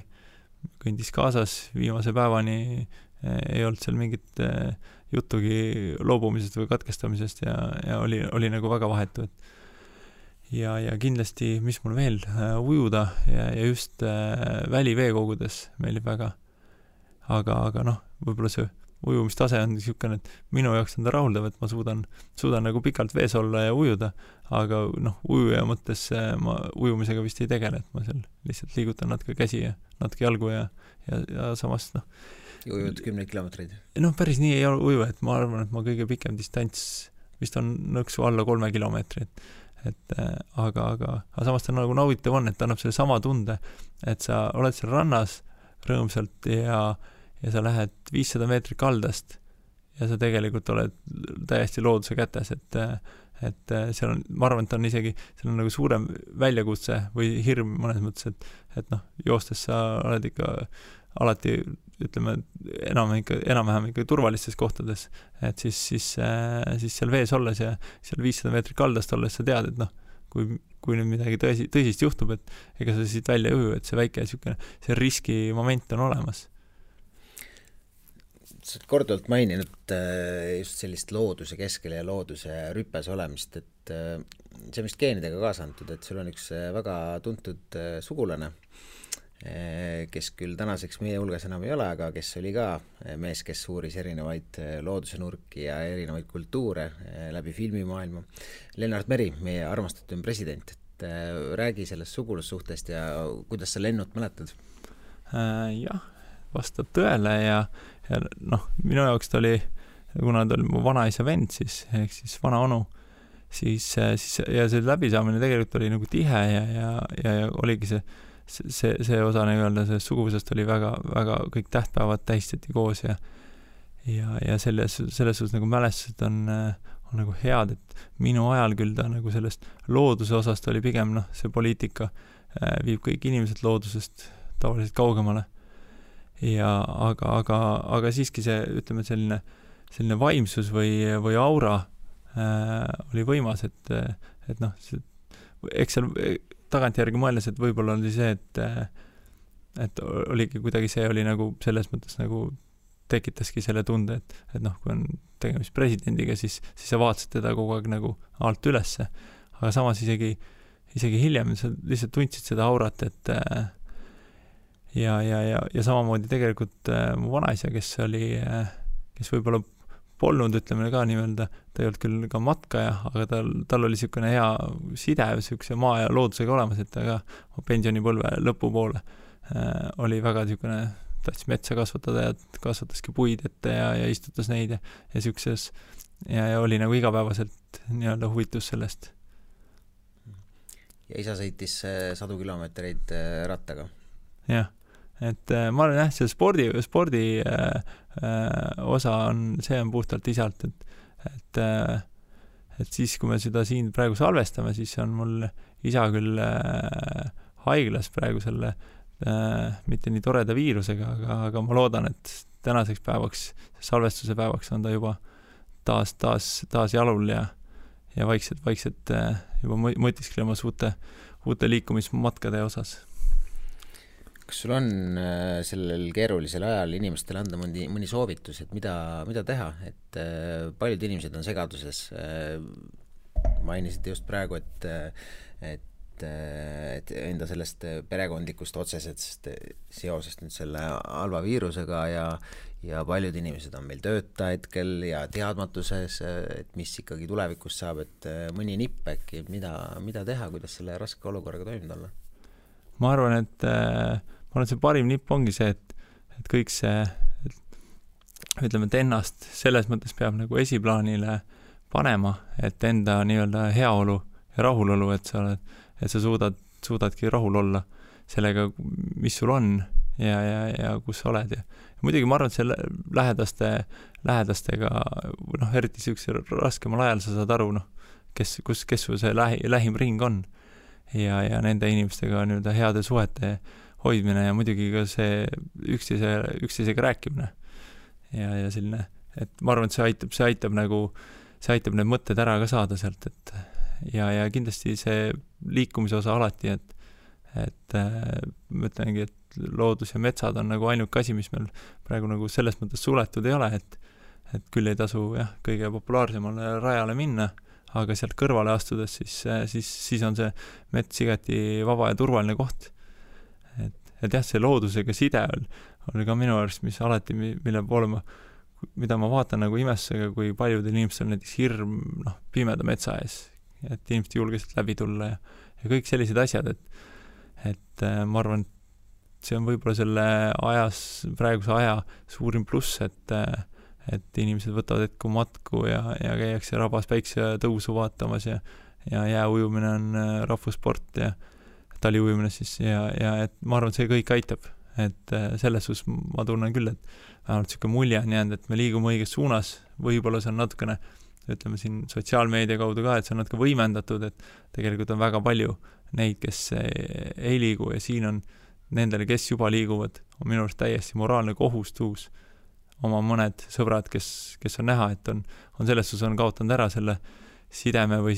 kõndis kaasas viimase päevani, ei olnud seal mingit jutugi loobumisest või katkestamisest ja oli nagu väga vahetu, ja kindlasti, mis mul veel, ujuda ja just väliveekogudes meeldib väga. Aga võib-olla see ujumistase on niisugune, et minu jaoks on ta rahuldav, et ma suudan nagu pikalt vees olla ja ujuda, aga ujuja mõttes ma ujumisega vist ei tegele, et ma seal lihtsalt liigutan natuke käsi ja natuke jalgu ja samas Ujud 10 kilomeetreid? Päris nii ei ole uju, et ma arvan, et ma kõige pikem distants vist on nõksu alla 3 kilomeetrit. Aga samas ta nagu nauditav on, et ta annab selle sama tunde, et sa oled seal rannas rõõmsalt ja sa lähed 500 meetrit kaldast ja sa tegelikult oled täiesti looduse kätes, et seal on, ma arvan, et on isegi, seal on nagu suurem väljakutse või hirm mõnes mõttes, et joostes sa oled ikka alati, ütleme, enam-vähem ikka turvalistes kohtades, et siis seal vees olles ja seal 500 meetrit kaldast olles sa tead, et kui nüüd midagi tõsist juhtub, et ega sa siit välja ei uju, et see väike see riski moment on olemas. Sa oled korduvalt maininud just sellist looduse keskel ja looduse rüppes olemist, et see on vist geenidega kaasa antud, et sul on üks väga tuntud sugulane, kes küll tänaseks meie hulgas enam ei ole, aga kes oli ka mees, kes uuris erinevaid looduse nurki ja erinevaid kultuure läbi filmimaailma. Lennart Meri, meie armastatud president, et räägi sellest sugulussuhtest ja kuidas sa Lennut mäletad? Jah, vastab tõele ja minu jaoks ta oli, kuna ta oli mu vanaisa vend, siis vana onu, siis ja see läbisaamine tegelikult oli nagu tihe ja oligi see osa nii-öelda sellest suguvusest oli väga, väga kõik tähtpäevad tähistati koos ja selles suhtes nagu mälestused on nagu head, et minu ajal küll ta nagu sellest looduse osast oli pigem see poliitika viib kõik inimesed loodusest tavaliselt kaugemale. Aga siiski see, ütleme, selline vaimsus või aura oli võimas, et eks seal tagantjärgi mõeldes, et võib-olla oli see, et oligi kuidagi see oli nagu selles mõttes nagu tekitaski selle tunde, et kui on tegemist presidendiga, siis sa vaatasid teda kogu aeg nagu alt ülesse, aga samas isegi hiljem sa lihtsalt tundsid seda aurat, et ja samamoodi tegelikult mu vanaisa, kes võib-olla polnud, ütleme ka nii-öelda, ta ei olnud küll ka matkaja, aga tal oli niisugune hea side, niisuguse maa ja loodusega olemas, et ta ka pensionipõlve lõpupoole oli väga niisugune tahtis metsa kasvatada ja kasvataski puid ette ja istutas neid ja siukses ja oli nagu igapäevaselt nii-öelda huvitus sellest. Ja isa sõitis 100 kilomeetreid rattaga? Jah, et ma olen see spordi osa see on puhtalt isalt, et siis, kui me seda siin praegu salvestame, siis on mul isa küll haiglas praegu selle mitte nii toreda viirusega, aga ma loodan, et tänaseks päevaks, salvestuse päevaks on ta juba taas jalul ja vaikselt juba mõtisklemas uute liikumismatkade osas. Kas sul on sellel keerulisel ajal inimestele anda mõni soovitus, et mida teha, et paljud inimesed on segaduses, mainisid just praegu, et enda sellest perekondlikust otsesest seosest nüüd selle halva viirusega ja paljud inimesed on meil tööta hetkel ja teadmatuses, et mis ikkagi tulevikus saab, et mõni nipp äkki, mida teha, kuidas selle raske olukorraga toimida olla? Ma arvan, et see parim nipp ongi see, et kõik see, ütleme, et ennast selles mõttes peab nagu esiplaanile panema, et enda nii-öelda heaolu ja rahulolu, et sa suudadki rahul olla sellega, mis sul on ja kus sa oled. Ja muidugi ma arvan, et see lähedastega, eriti siukse raskemal ajal sa saad aru, kes sul see lähim ring on ja nende inimestega nii-öelda heade suhete hoidmine ja muidugi ka see üksteisega rääkimine ja selline, et ma arvan, et see aitab need mõtted ära ka saada sealt, et ja kindlasti see liikumise osa alati, et ma ütlengi, et loodus ja metsad on nagu ainuke asi, mis meil praegu nagu selles mõttes suletud ei ole, et küll ei tasu kõige populaarsemale rajale minna, aga sealt kõrvale astudes siis on see mets igati vaba ja turvaline koht. Et see loodusega side on ka minu arust, mis alati, mille poole mida ma vaatan nagu imestusega, kui paljudel inimestel näiteks hirm pimeda metsa ees, et inimesed julgesid läbi tulla ja kõik sellised asjad, et ma arvan, et see on võib-olla selle praeguse aja suurim pluss, et inimesed võtavad hetku matku ja käiakse rabas päikse tõusu vaatamas ja jääujumine on rahvussport ja taliujumine siis ja et ma arvan, et see kõik aitab, et selles suus ma tunnen küll, et vähemalt selline mulje on jäänud, et me liigume õiges suunas, võib-olla see on natukene, ütleme siin sotsiaalmeedia kaudu ka, et see on natuke võimendatud, et tegelikult on väga palju neid, kes ei liigu ja siin on nendele, kes juba liiguvad, on minu arust täiesti moraalne kohustus oma mõned sõbrad, kes on näha, et on selles suus on kaotanud ära selle sideme või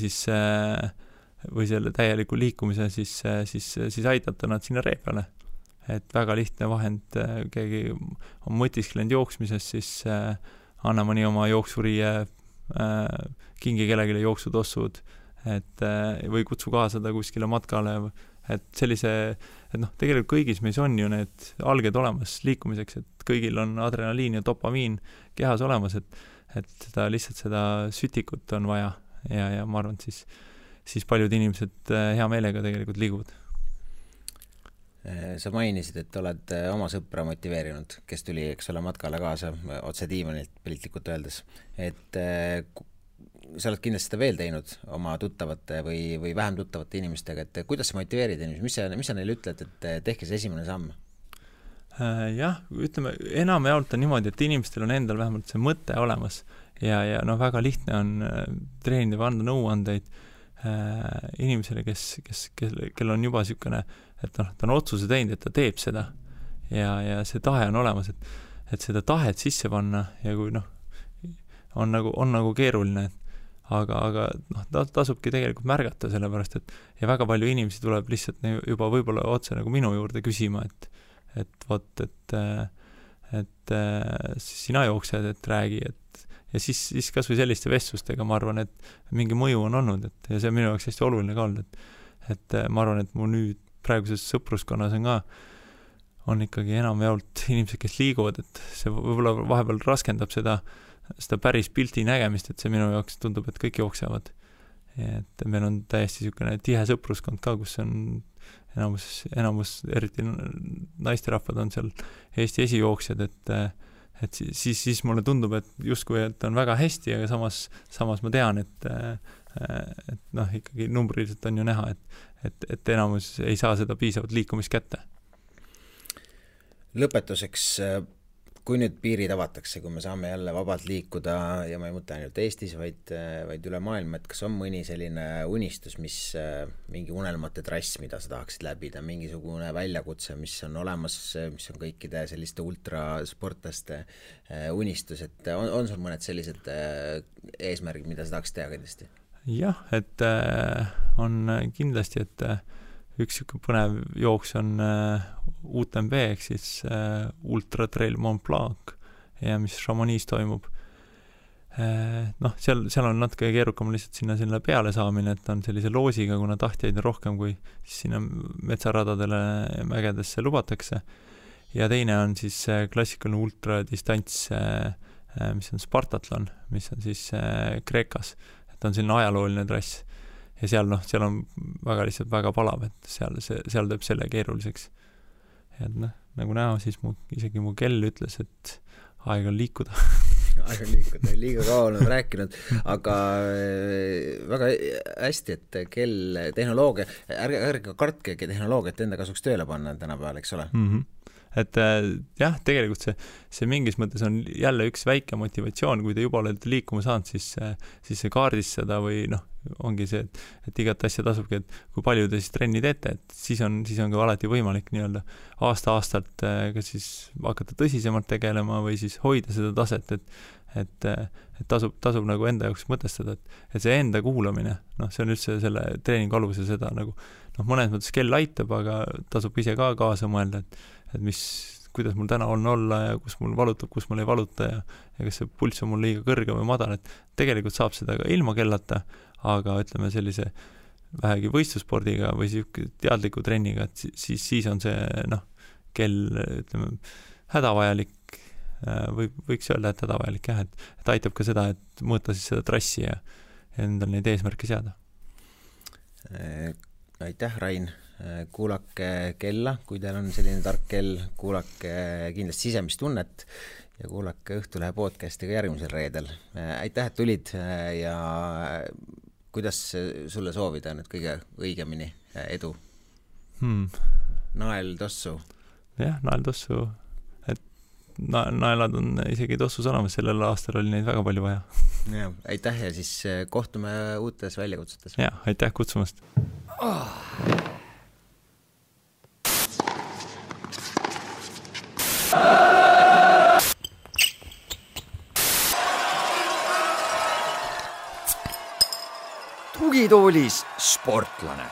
selle täieliku liikumise, siis aidata nad sinna ree peale. Et väga lihtne vahend, keegi on mõtisklenud jooksmises, siis anna mõni oma jooksuriie, kingi kellegile jooksutossud, või kutsu kaasada kuskile matkale, et tegelikult kõigis meis on ju need alged olemas liikumiseks, et kõigil on adrenaliin ja dopamiin kehas olemas, et seda sütikut on vaja ja ma arvan, et siis paljud inimesed hea meelega tegelikult liiguvad. Sa mainisid, et oled oma sõpra motiveerinud, kes tuli, eks ole, matkale kaasa otse diivanilt piltlikult öeldes, et sa oled kindlasti seda veel teinud oma tuttavate või vähem tuttavate inimestega, et kuidas sa motiveerid inimesi, mis sa neile ütled, et tehke see esimene samm? Jah, ütleme, enamjaolt on niimoodi, et inimestel on endal vähemalt see mõte olemas ja väga lihtne on treenida või anda nõuandeid inimesele, kel on juba niisugune, et ta on otsuse teinud, et ta teeb seda ja see tahe on olemas, et seda tahet sisse panna ja kui on nagu keeruline, aga tasubki tegelikult märgata sellepärast, et väga palju inimesi tuleb lihtsalt juba võib-olla otse nagu minu juurde küsima, et sina jooksed, et räägi, ja siis kas või selliste vestlustega ma arvan, et mingi mõju on olnud, ja see on minu jaoks hästi oluline ka olnud, et ma arvan, et mu nüüd praeguses sõpruskonnas on ikkagi enamjaolt inimesed, kes liiguvad, et see võib-olla vahepeal raskendab seda päris pilti nägemist, et see minu jaoks tundub, et kõik jooksevad. Et meil on täiesti niisugune tihe sõpruskond ka, kus on enamus eriti naisterahvad on seal Eesti esijooksjad, et siis mulle tundub, et justkui, et on väga hästi, aga samas ma tean, et noh, ikkagi numbriliselt on ju näha, et enamus ei saa seda piisavalt liikumist kätte. Lõpetuseks, kui nüüd piirid avatakse, kui me saame jälle vabalt liikuda ja ma ei mõtle ainult Eestis, vaid üle maailma, et kas on mõni selline unistus, mingi unelmate trass, mida sa tahaksid läbida, mingisugune väljakutse, mis on olemas, mis on kõikide selliste ultrasportlaste unistus, et on sul mõned sellised eesmärgid, mida sa tahaksid teha kindlasti? Jah, et on kindlasti, et üks põnev jooks on UTMB, ehk siis Ultra Trail Mont Blanc, mis Chamonix toimub. Noh, seal on natuke keerukam lihtsalt sinna peale saamine, et on sellise loosiga, kuna tahtjaid on rohkem, kui sinna metsaradadele mägedesse lubatakse. Ja teine on siis klassikaline ultradistants, mis on Spartatlon, mis on siis Kreekas. Et on selline ajalooline trass. Ja seal on lihtsalt väga palav, et seal teeb selle keeruliseks. Ja nagu näha, siis isegi mu kell ütles, et aeg on liikuda. Aeg on liikuda, liiga kaua olen rääkinud, aga väga hästi, et kell tehnoloogia, ärge kartke tehnoloogiat enda kasuks tööle panna tänapäeval, eks ole? Et jah, tegelikult see mingis mõttes on jälle üks väike motivatsioon, kui te juba olete liikuma saanud, siis see kaardistada või ongi see, et igat asja tasubki, et kui palju te siis trenni teete, et siis on ka alati võimalik nii-öelda aasta-aastalt kas siis hakata tõsisemalt tegelema või siis hoida seda taset, et tasub nagu enda jaoks mõtestada, et see enda kuulamine, see on üldse selle treeningu alusel seda nagu, mõnes mõttes kell aitab, aga tasub ise ka kaasa mõelda, et kuidas mul täna on olla ja kus mul valutab, kus mul ei valuta ja kas see pulss on mul liiga kõrge või madal, et tegelikult saab seda ka ilma kellata, aga ütleme sellise vähegi võistlusspordiga või teadliku trenniga, et siis on see kell, ütleme, hädavajalik, võiks öelda, et hädavajalik jah, et aitab ka seda, et mõõta siis seda trassi ja endal neid eesmärke seada. Aitäh, Rain! Kuulake kella, kui teil on selline tark kell, kuulake kindlasti sisemist tunnet ja kuulake Õhtulehe podcastiga järgmisel reedel. Aitäh, et tulid ja kuidas sulle soovida nüüd kõige õigemini edu? Nael tossu? Jah, nael tossu. Et naelad on isegi tossu salamas, sellel aastal oli neid väga palju vaja. Ja, aitäh ja siis kohtume uutes väljakutsetes. Ja, aitäh kutsumast! Tugitoolis sportlane.